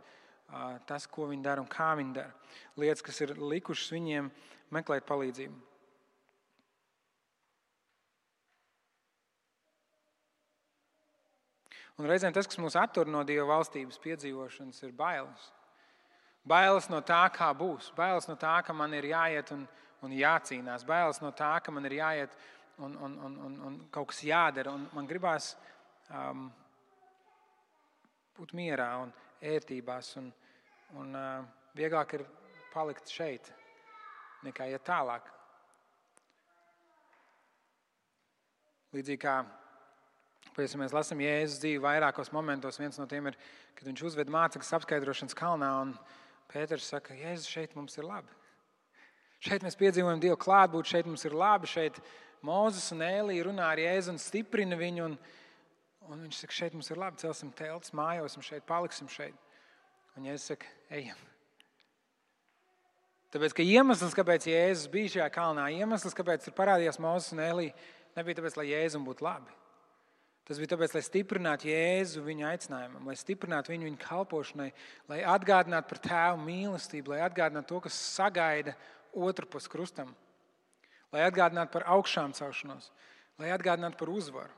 tas, ko viņi dara un kā viņi dara. Lietas, kas ir likušas viņiem meklēt palīdzību. Un reizēm tas, kas mūs attur no Dieva valstības piedzīvošanas, ir bailes. Bailes no tā, kā būs. Bailes no tā, ka man ir jāiet un jācīnās. Bailes no tā, ka man ir jāiet un kaut kas jādara. Un man gribās būt mierā un ērtībās. Un vieglāk ir palikt šeit, nekā iet tālāk. Līdzīgi kā mēs lasām Jēzus dzīvi vairākos momentos. Viens no tiem ir, kad viņš uzved mācekļus apskaidrošanas kalnā, un Pēters saka, Jēzus, šeit mums ir labi. Šeit mēs piedzīvojam Dievu klātbūtni, šeit mums ir labi, šeit Mūzes un Ēlija runā ar Jēzu un stiprina viņu, un viņš saka, šeit mums ir labi, celsim teltis, mājosim šeit, paliksim šeit. Un Jēzus saka, ejam. Tāpēc, ka iemesls, kāpēc Jēzus bija šajā kalnā, iemesls, kāpēc tur parādījās Mūzes un Ēlija, nebija tāpēc, lai Jēzum būtu labi. Tas bija tāpēc, lai stiprinātu Jēzu viņa aicinājumam, lai stiprinātu viņu kalpošanai, lai atgādinātu par tēvu mīlestību, lai atgādinātu to, kas sagaida otru pus krustam, lai atgādinātu par augšām celšanos, lai atgādinātu par uzvaru.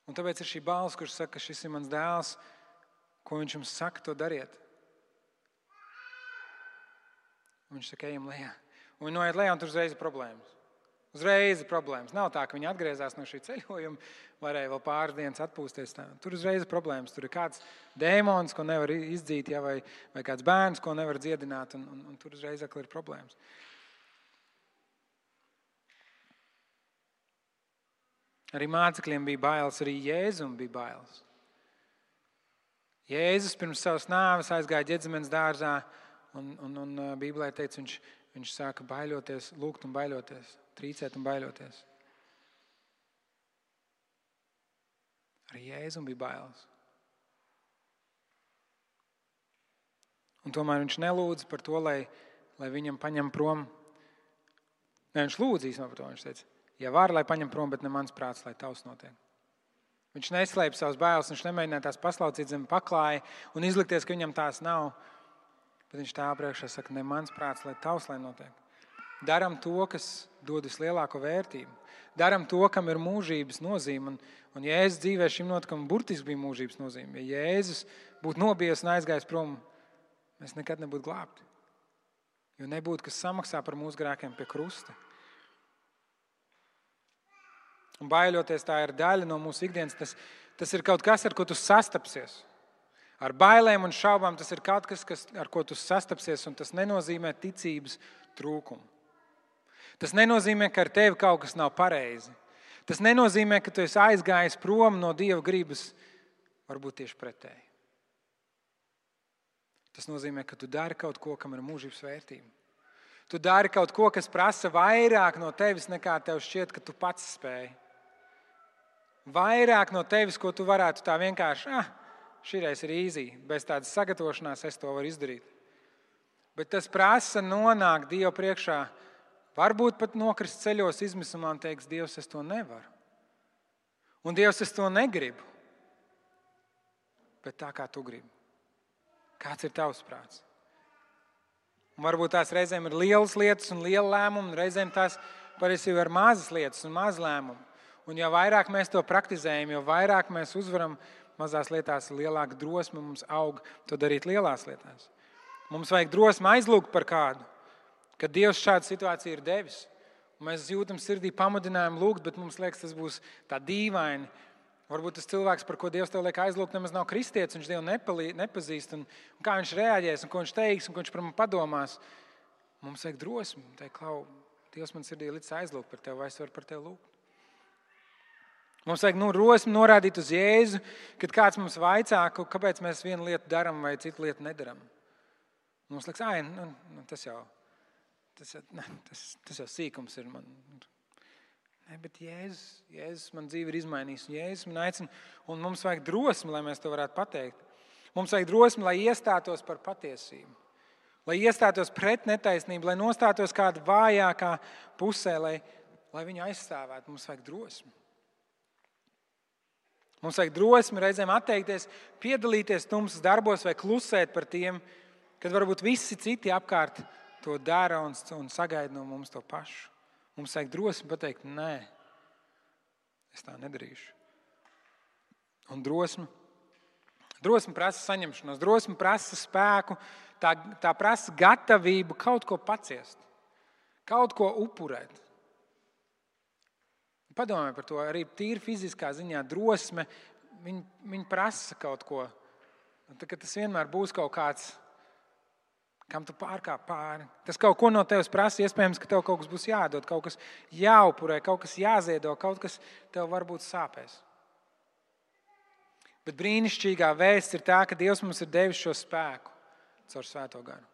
Un tāpēc ir šī balss, kurš saka, ka šis ir mans dēls, ko viņš jums saka, to dariet. Un viņš saka, ejam lejā. Un viņi noiet lejā, un tur uzreiz ir problēmas. Uzreiz ir problēmas. Nav tā, ka viņi atgriezās no šī ceļojuma, varēja vēl pāris dienas atpūsties. Tur uzreiz ir problēmas. Tur ir kāds dēmons, ko nevar izdzīt, vai kāds bērns, ko nevar dziedināt, un tur uzreiz ir problēmas. Arī mācekļiem bija bailes, arī Jēzum bija bailes. Jēzus pirms savas nāves aizgāja Ģedzemenes dārzā, un Bībelē teica, viņš sāka baiļoties, lūgt un baiļoties, trīcēt un baiļoties. Arī Jēzum bija bailes. Un tomēr viņš nelūdza par to, lai viņam paņem prom. Ne, viņš lūdzīs par to, viņš teica, ja var, lai paņem prom, bet ne mans prāts, lai tavs notiek. Viņš neslēpa savas bailes, viņš nemēģināja tās paslaucīt zem paklāja un izlikties, ka viņam tās nav. Bet viņš tēva priekšā saka, ne mans prāts, lai tavs lai notiek. Daram to, kas dod vislielāko vērtību. Daram to, kam ir mūžības nozīme. Un Jēzus dzīvē šim notikumam burtiski bija mūžības nozīme. Ja Jēzus būtu nobijies un aizgājis prom, mēs nekad nebūtu glābti. Jo nebūtu, kas samaksā par mūsu grēkiem pie krusta. Un baiļoties, tā ir daļa no mūsu ikdienas. Tas ir kaut kas, ar ko tu sastapsies. Ar bailēm un šaubām tas ir kaut kas, ar ko tu sastapsies, un tas nenozīmē ticības trūkumu. Tas nenozīmē, ka ar tevi kaut kas nav pareizi. Tas nenozīmē, ka tu esi aizgājis prom no Dieva gribas, varbūt tieši pretēji. Tas nozīmē, ka tu dari kaut ko, kam ir mūžības vērtība. Tu dari kaut ko, kas prasa vairāk no tevis, nekā tev šķiet, ka tu pats spēj. Vairāk no tevis, ko tu varētu tā vienkārši, šīreiz ir easy, bez tādas sagatavošanās es to varu izdarīt. Bet tas prasa nonākt Dievu priekšā, varbūt pat nokrist ceļos izmisumā un teiks, Dievs, es to nevaru. Un Dievs, es to negribu. Bet tā kā tu gribi. Kāds ir tavs prāts? Un varbūt tās reizēm ir lielas lietas un liela lēmuma, un reizēm tās patiesībā ir mazas lietas un maz lēmumi. Un jo vairāk mēs to praktizējam, jo vairāk mēs uzvaram mazās lietās, lielāka drosme mums aug to darīt lielās lietās. Mums vajag drosmi aizlūgt par kādu, kad Dievs šādu situāciju ir devis. Un mēs jūtam sirdī pamudinājumu lūgt, bet mums liekas, tas būs tā dīvaini. Varbūt tas cilvēks, par ko Dievs tev liek aizlūgt, nemaz nav kristietis, viņš Dievu nepazīst. Un kā viņš reaģēs, un ko viņš teiks, un ko viņš par mani padomās. Mums vajag drosmi. Teikt, Klau, Dievs man sirdī licis aizlūgt par tevi, vai es varu par tevi lūgt. Mums vajag drosmi norādīt uz Jēzu, kad kāds mums vaicā, kāpēc mēs vienu lietu daram vai citu lietu nedaram. Mums liekas, tas jau sīkums ir man. Ne, bet Jēzus man dzīvi ir izmainījis, un Jēzus man aicina, un mums vajag drosmi, lai mēs to varētu pateikt. Mums vajag drosmi, lai iestātos par patiesību, lai iestātos pret netaisnību, lai nostātos kāda vājākā pusē, lai viņu aizstāvētu. Mums vajag drosmi. Mums vajag drosmi reizēm atteikties, piedalīties tumsas darbos vai klusēt par tiem, kad varbūt visi citi apkārt to dara un sagaida no mums to pašu. Mums vajag drosmi pateikt, nē, es tā nedarīšu. Un drosmi prasa saņemšanos, drosmi prasa spēku, tā prasa gatavību kaut ko paciest, kaut ko upurēt. Padomāj par to, arī tīri fiziskā ziņā drosme, viņi prasa kaut ko. Tas vienmēr būs kaut kāds, kam tu pārkāp pāri. Tas kaut ko no tevis prasa, iespējams, ka tev kaut kas būs jādod, kaut kas jāupurē, kaut kas jāziedo, kaut kas tev varbūt sāpēs. Bet brīnišķīgā vēsts ir tā, ka Dievs mums ir devis šo spēku caur Svēto garu.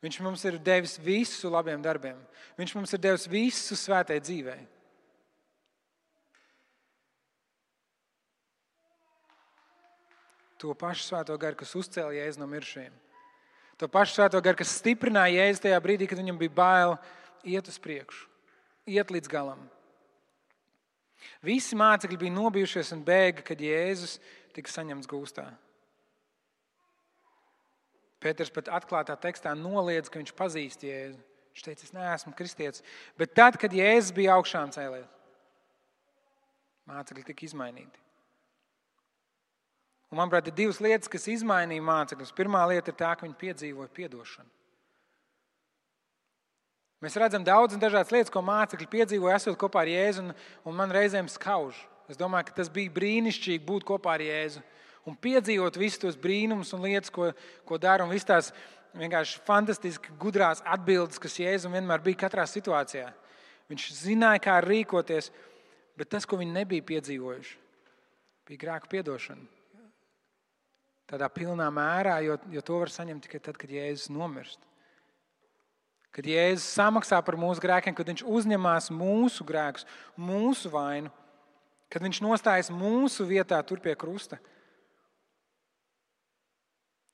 Viņš mums ir devis visu labiem darbiem. Viņš mums ir devis visu svētai dzīvei. To pašu Svēto garu, kas uzcēla Jēzu no mirušajiem. To pašu Svēto garu, kas stiprināja Jēzu tajā brīdī, kad viņam bija bail iet uz priekšu, iet līdz galam. Visi mācekļi bija nobijušies un bēga, kad Jēzus tika saņemts gūstā. Pēters pat atklātā tekstā noliedz, ka viņš pazīst Jēzu. Viņš teica, es neesmu kristietis. Bet tad, kad Jēzus bija augšām cēlies, mācekļi tika izmainīti. Un, manuprāt, ir divas lietas, kas izmainīja mācekļus. Pirmā lieta ir tā, ka viņi piedzīvoja piedošanu. Mēs redzam daudz un dažādas lietas, ko mācekļi piedzīvoja, esot kopā ar Jēzu, un man reizēm skauž. Es domāju, ka tas bija brīnišķīgi būt kopā ar Jēzu un piedzīvot visus tos brīnumus un lietas, ko dara, un visas tās vienkārši fantastiski gudrās atbildes, kas Jēzum vienmēr bija katrā situācijā. Viņš zināja, kā rīkoties, bet tas, ko viņi nebija piedzīvojuši, bija grēku piedošana. Tādā pilnā mērā, jo to var saņemt tikai tad, kad Jēzus nomirst. Kad Jēzus samaksā par mūsu grēkiem, kad viņš uzņemās mūsu grēkus, mūsu vainu, kad viņš nostājas mūsu vietā tur pie krusta.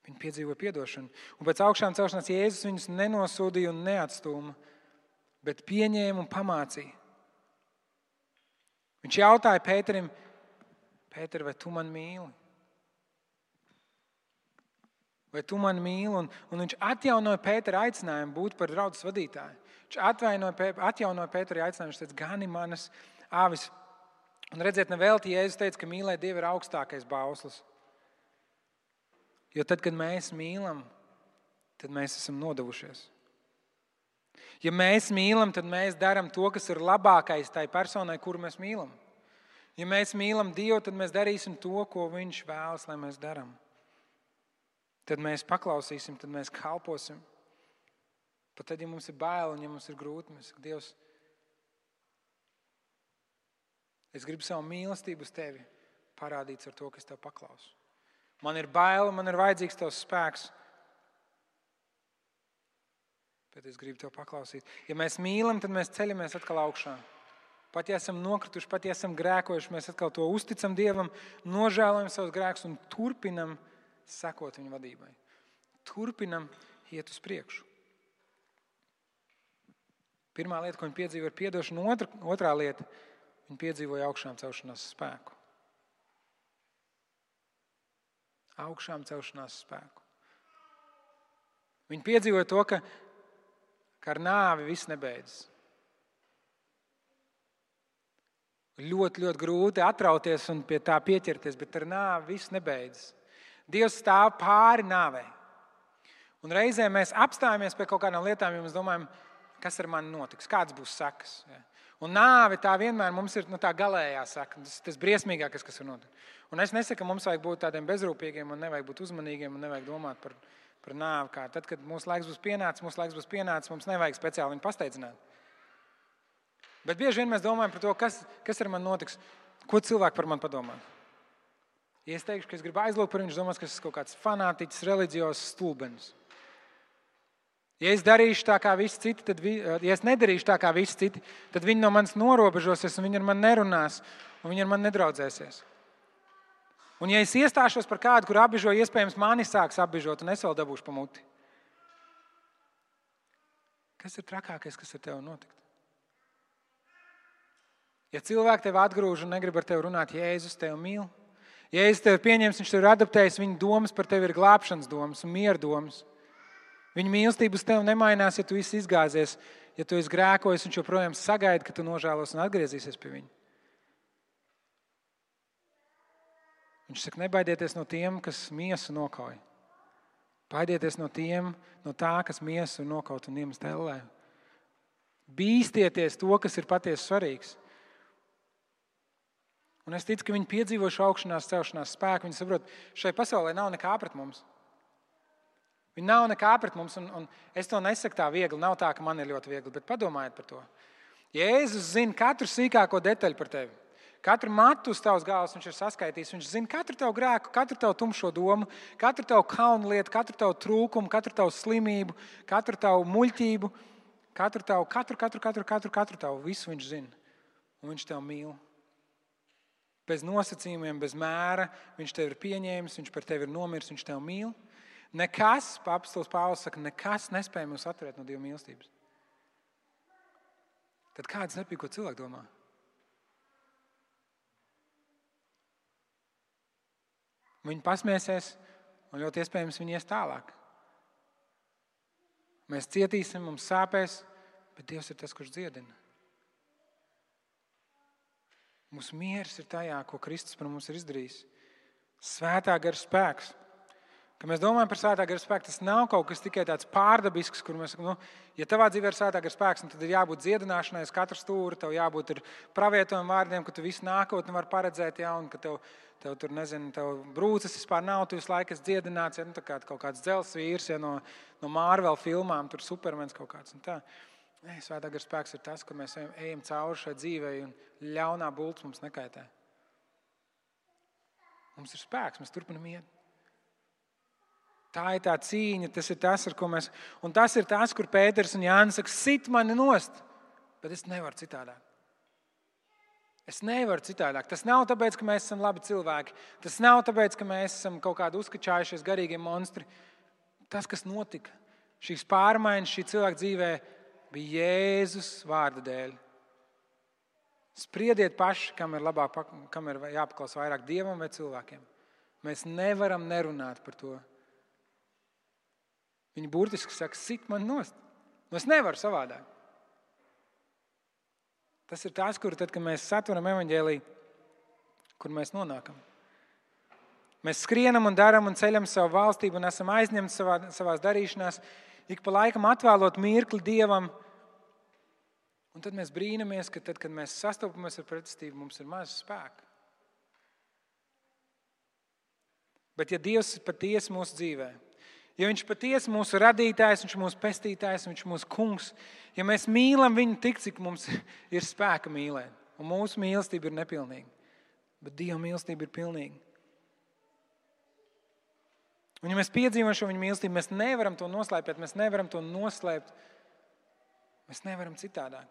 Viņi piedzīvoja piedošanu. Un pēc augšām celšanās Jēzus viņus nenosodīja un neatstūma, bet pieņēma un pamācīja. Viņš jautāja Pēterim, Pēter, vai tu man mīli? Vai tu mani mīli? Un viņš atjaunoja Pētera aicinājumu būt par draudzes vadītāju. Viņš atjaunoja Pētera aicinājumu. Viņš teica, gani manas āvis. Un redziet, nevelti Jēzus teica, ka mīlēt Dievu ir augstākais bauslis. Jo tad, kad mēs mīlam, tad mēs esam nodevušies. Ja mēs mīlam, tad mēs darām to, kas ir labākais tai personai, kuru mēs mīlam. Ja mēs mīlam Dievu, tad mēs darīsim to, ko Viņš vēlas, lai mēs darām. Tad mēs paklausīsim, tad mēs kalposim. Pat tad, ja mums ir bail un ja mums ir grūti, mēs sakam, Dievs, es gribu savu mīlestību uz tevi parādīt ar to, ka es tev paklausu. Man ir bail, man ir vajadzīgs tavs spēks, bet es gribu tev paklausīt. Ja mēs mīlam, tad mēs ceļamies atkal augšā. Pat ja esam nokrituši, pat ja esam grēkojuši, mēs atkal to uzticam Dievam, nožēlojam savus grēkus un turpinam sekot viņa vadībai. Turpinam iet uz priekšu. Pirmā lieta, ko viņi piedzīvoja, ir piedošana. Otrā lieta, viņi piedzīvoja augšām celšanās spēku. Augšām celšanās spēku. Viņi piedzīvoja to, ka ar nāvi viss nebeidzas. Ļoti, ļoti grūti atrauties un pie tā pieķerties, bet ar nāvi viss nebeidzas. Dievs stāv pāri nāvei. Un reizē mēs apstājamies pie kaut kādām lietām, jo mēs domājam, kas ar mani notiks, kāds būs sekas. Ja? Un nāve tā vienmēr mums ir tā galējā seka, tas briesmīgākais, kas var notikt. Un es nesaku, ka mums vajag būt tādiem bezrūpīgiem un nevajag būt uzmanīgiem un nevajag domāt par nāvi. Kā tad, kad mūsu laiks būs pienācis, mums nevajag speciāli viņu pasteidzināt. Bet bieži vien mēs domājam par to, kas ar mani notiks, ko cilvēki par mani padomā. Ja es teikšu, ka es gribu aizlūgt par viņu, domās, ka es esmu kaut kāds fanātiķis, reliģiozs stulbenis. Ja es darīšu tā kā visi citi, ja es nedarīšu tā kā visi citi, tad viņi no manis norobežosies un viņi ar mani nerunās un viņi ar mani nedraudzēsies. Un ja es iestāšos par kādu, kur apbižo, iespējams mani sāks apbižot un es vēl dabūšu pa muti. Kas ir trakākais, kas ar tevi notikt? Ja cilvēki tevi atgrūž un negrib ar tevi runāt, Jēzus tevi mīl, Jēzus tevi pieņems, viņš tevi ir adaptējis, viņa domas par tevi ir glābšanas domas un miera domas. Viņa mīlestība uz tevi nemainās, ja tu esi izgāzies, ja tu esi grēkojis, viņš joprojām sagaida, ka tu nožēlos un atgriezīsies pie viņa. Viņš saka, nebaidieties no tiem, kas miesu nokauj. Baidieties no tā, kas miesu nokaut un iemest ellē. Bīstieties to, kas ir patiesi svarīgs. Un es ticu, ka viņi piedzīvo šo augšanās celšanās spēku. Viņi saprot, šai pasaulē nav nekā pret mums. Viņi nav nekā pret mums, un es to nesaku tā viegli. Nav tā, ka man ir ļoti viegli, bet padomājiet par to. Jēzus zina katru sīkāko detaļu par tevi. Katru matu uz tavas galvas viņš ir saskaitījis. Viņš zina katru tavu grēku, katru tavu tumšo domu, katru tavu kaunu lietu, katru tavu trūkumu, katru tavu slimību, katru tavu muļķību, katru tavu, visu viņš zina. Un viņš tev mīl. Bez nosacījumiem, bez mēra, viņš tevi ir pieņēmis, viņš par tevi ir nomiris, viņš tevi mīl. Nekas, apostols Pāvils saka, nekas nespēj mūs atturēt no Dieva mīlestības. Tad kāds nepīk, ko cilvēki domā? Viņi pasmiesies, un ļoti iespējams viņi ies tālāk. Mēs cietīsim, mums sāpēs, bet Dievs ir tas, kurš dziedina. Mūsu miers ir tajā, ko Kristus par mums ir izdarījis. Svētā gara spēks. Kad mēs domājam par svētā gara spēku, tas nav kaut kas tikai tāds pārdabisks, kur mēs sakam, ja tavā dzīvē ir svētā gara spēks, tad ir jābūt dziedināšanai uz katru stūri, tev jābūt ir pravietojuma vārdiem, ka tu visu nākotni var paredzēt, ja, un ka tev tur, tev brūces vispār nav, tu visu laiku esi dziedināts, ja, tā kā kaut kāds dzels vīrs, ja, no Marvel filmām, tur Supermens kaut kāds un tā. Svētā gara spēks ir tas, ka mēs ejam cauri šai dzīvei un ļaunā bults mums nekaitē. Mums ir spēks, mēs turpinam iet. Tā ir tā cīņa, tas ir tas, ar ko mēs... Un tas ir tas, kur Pēters un Jānis saka, sit mani nost, bet es nevaru citādāk. Es nevaru citādāk. Tas nav tāpēc, ka mēs esam labi cilvēki. Tas nav tāpēc, ka mēs esam kaut kādi uzkačājušies garīgie monstri. Tas, kas notika, šīs pārmaiņas šī cilvēka dzīvē, bija Jēzus vārda dēļ. Spriediet paši, kam ir jāpaklaus vairāk Dievam vai cilvēkiem. Mēs nevaram nerunāt par to. Viņi burtiski saka, sit man nost. Es nevaru savādāk. Tas ir tas, kur tad, kad mēs satveram evaņģēliju, kur mēs nonākam. Mēs skrienam un daram un ceļam savu valstību un esam aizņemti savās darīšanās, ik pa laikam atvēlot mirkli Dievam. Un tad mēs brīnamies, ka tad, kad mēs sastopamies ar pretestību, mums ir maz spēka. Bet ja Dievs patiesi mūsu dzīvē, ja viņš patiesi mūsu radītājs, viņš mūsu pestītājs, viņš mūsu kungs, ja mēs mīlam viņu tik, cik mums ir spēka mīlēt, un mūsu mīlestība ir nepilnīga, bet Dieva mīlestība ir pilnīga. Un ja mēs piedzīvojam šo viņa mīlestību, mēs nevaram to noslēpēt, mēs nevaram to noslēpt, mēs nevaram citādāk.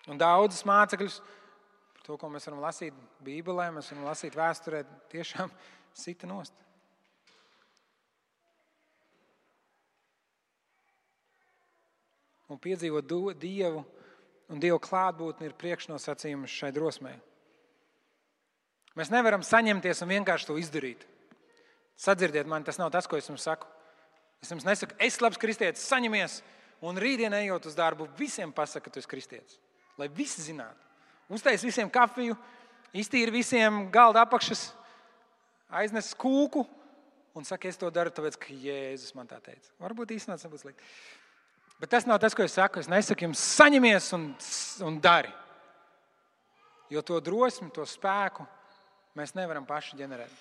Un daudzas mācekļus, par to, ko mēs varam lasīt Bībelē, mēs varam lasīt vēsturē, tiešām sita nost. Un piedzīvot Dievu un Dieva klātbūtni ir priekšnosacījums šai drosmei. Mēs nevaram saņemties un vienkārši to izdarīt. Sadzirdiet mani, tas nav tas, ko es jums saku. Es jums nesaku, es labs kristietis, saņemies, un rītdien ejot uz darbu, visiem pasaka, ka tu esi kristietis. Lai visi zinātu. Uztais visiem kafiju, iztīri visiem galda apakšas, aiznes kūku un saka, es to daru, tāpēc, ka Jēzus man tā teica. Varbūt īstenībā tas nebūs slikti. Bet tas nav tas, ko es saku. Es nesaku jums, saņemies un dari. Jo to drosmi, to spēku mēs nevaram paši ģenerēt.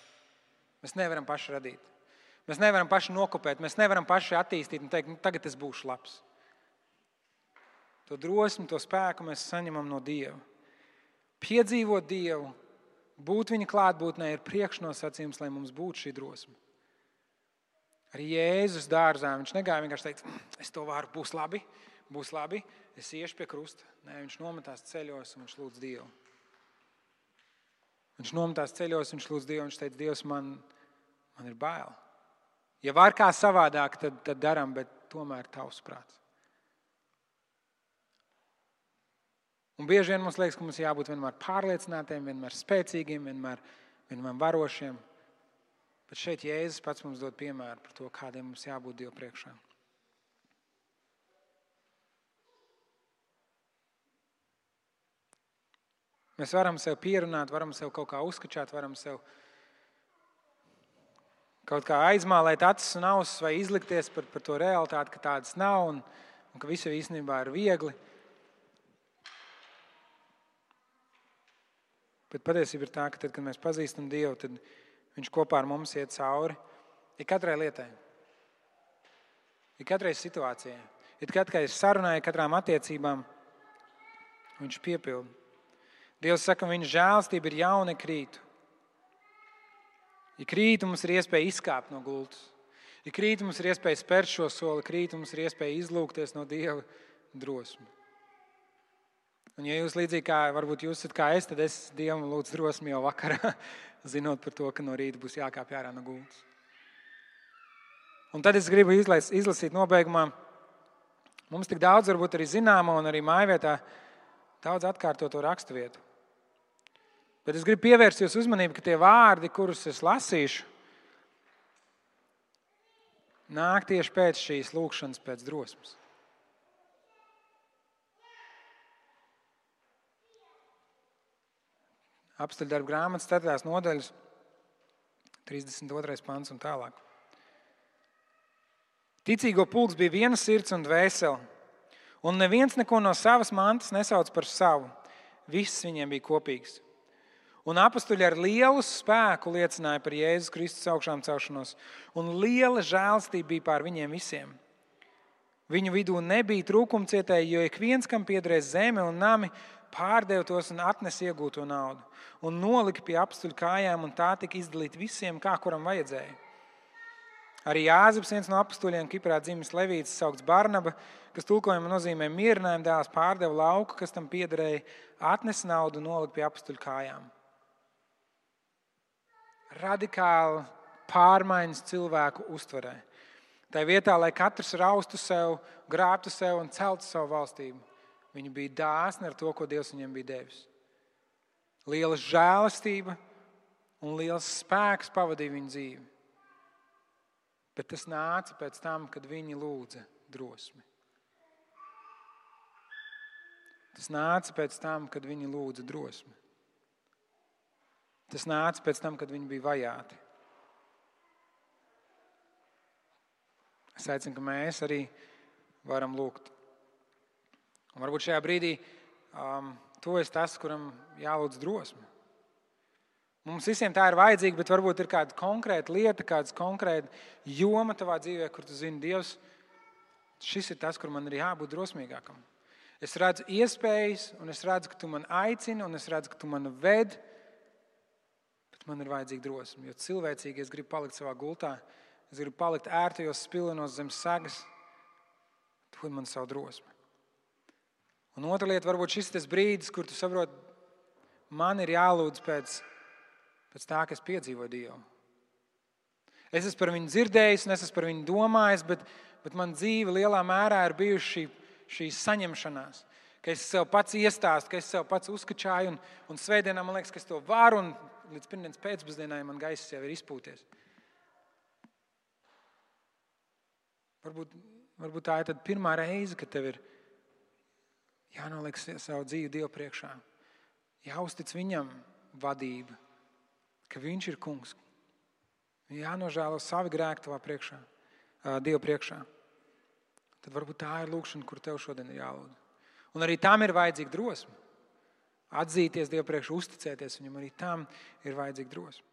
Mēs nevaram paši radīt. Mēs nevaram paši nokopēt. Mēs nevaram paši attīstīt un teikt, tagad es būšu labs. To drosmi, to spēku mēs saņemam no Dieva. Piedzīvot Dievu, būt viņa klātbūtnē ir priekšnosacījums, lai mums būtu šī drosme. Arī Jēzus dārzā, viņš negāja vienkārši teikt, es to varu, būs labi, es iešu pie krusta. Nē, viņš nometās ceļos un viņš lūdz Dievu. Viņš nometās ceļos, viņš lūdz Dievu, viņš teica, Dievs, man ir bail. Ja var kā savādāk, tad daram, bet tomēr tavs prāts. Un bieži vien mums liekas, ka mums jābūt vienmēr pārliecinātiem, vienmēr spēcīgiem, vienmēr varošiem. Bet šeit Jēzus pats mums dod piemēru par to, kādiem mums jābūt Dievu priekšā. Mēs varam sev pierunāt, varam sev kaut kā uzskačāt, varam sev kaut kā aizmālēt acis un ausis vai izlikties par to realitāti, ka tādas nav un ka visu īstenībā ir viegli. Bet patiesība ir tā, ka tad, kad mēs pazīstam Dievu, tad viņš kopā ar mums iet cauri ik katrai lietai, ik katrai situācijai, ik katrai sarunai, katrām attiecībām viņš piepilda. Dievs saka, viņa žēlstība ir jauna ik rītu. Ik rītu mums ir iespēja izkāpt no gultas. Ik rītu mums ir iespēja spērt šo soli, ik rītu mums ir iespēja izlūgties no Dieva drosmi. Un ja jūs līdzīgi kā, varbūt jūs esat kā es, tad es Dievam lūdzu drosmi jau vakarā, zinot par to, ka no rīta būs jākāpj ārā no gultas. Un tad es gribu izlasīt nobeigumā. Mums tik daudz varbūt arī zināma un arī mājvietā daudz atkārtoto raksturvietu. Bet es gribu pievērst jūs uzmanību, ka tie vārdi, kurus es lasīšu, nāk tieši pēc šīs lūkšanas pēc drosmes. Apstuļdarbu grāmatas 4. nodaļas, 32. pants un tālāk. Ticīgo pulks bija viena sirds un dvēsele, un neviens neko no savas mantas nesauc par savu. Viss viņiem bija kopīgs. Un apostuļi ar lielu spēku liecināja par Jēzus Kristus augšām celšanos, un liela žēlstība bija pār viņiem visiem. Viņu vidū nebija trūkumcietēji, jo ik viens, kam piederēs zeme un nami, pārdeva tos un atnes iegūto naudu, un nolika pie apostuļu kājām, un tā tika izdalīta visiem, kā kuram vajadzēja. Arī Jāzeps, viens no apostuļiem, Kiprā dzimis Levīts, saukts Barnaba, kas tulkojumā nozīmē mierinājuma dēls, pārdeva lauku, kas tam piederēja, atnes naudu un nolika pie apostuļu kājām. Radikāli pārmaiņas cilvēku uztverē. Tā vietā, lai katrs raustu sev, grābtu sev un celtu savu valstību, viņi bija dāsni ar to, ko Dievs viņiem bija devis. Liela žēlastība un liels spēks pavadīja viņu dzīvi. Bet tas nāca pēc tam, kad viņi lūdza drosmi. Tas nāca pēc tam, kad viņi lūdza drosmi. Tas nāca pēc tam, kad viņi bija vajāti. Es aicinu, ka mēs arī varam lūgt. Un varbūt šajā brīdī tu esi tas, kuram jālūdz drosme. Mums visiem tā ir vajadzīga, bet varbūt ir kāda konkrēta lieta, kāda konkrēta joma tavā dzīvē, kur tu zini, Dievs, šis ir tas, kur man ir jābūt drosmīgākam. Es redzu iespējas, un es redzu, ka tu man aicini, un es redzu, ka tu man ved, bet man ir vajadzīga drosme. Jo cilvēcīgi es gribu palikt savā gultā, es gribu palikt ērtajos spilvenos zem segas, dod man savu drosmi. Un otra lieta, varbūt šis tas brīdis, kur tu saproti, man ir jālūdz pēc tā, ka es piedzīvoju Dievu. Es esmu par viņu dzirdējis, un es esmu par viņu domājis, bet man dzīve lielā mērā ir bijuši šī saņemšanās, ka es sev pats iestāstu, ka es sev pats uzkačāju, un svētdienā man liekas, ka es to varu, un līdz pirmdienas pēcpusdienai man gaiss jau ir izpūties. Varbūt tā ir tad pirmā reize, kad tev ir jānoliek savu dzīvi Dievu priekšā. Jāuztic viņam vadība, ka viņš ir kungs. Jānožēlo savi grēki tavā priekšā, Dievu priekšā. Tad varbūt tā ir lūkšana, kur tev šodien ir jālūdz. Un arī tam ir vajadzīga drosme. Atzīties Dievu priekšā, uzticēties viņam, arī tam ir vajadzīga drosme.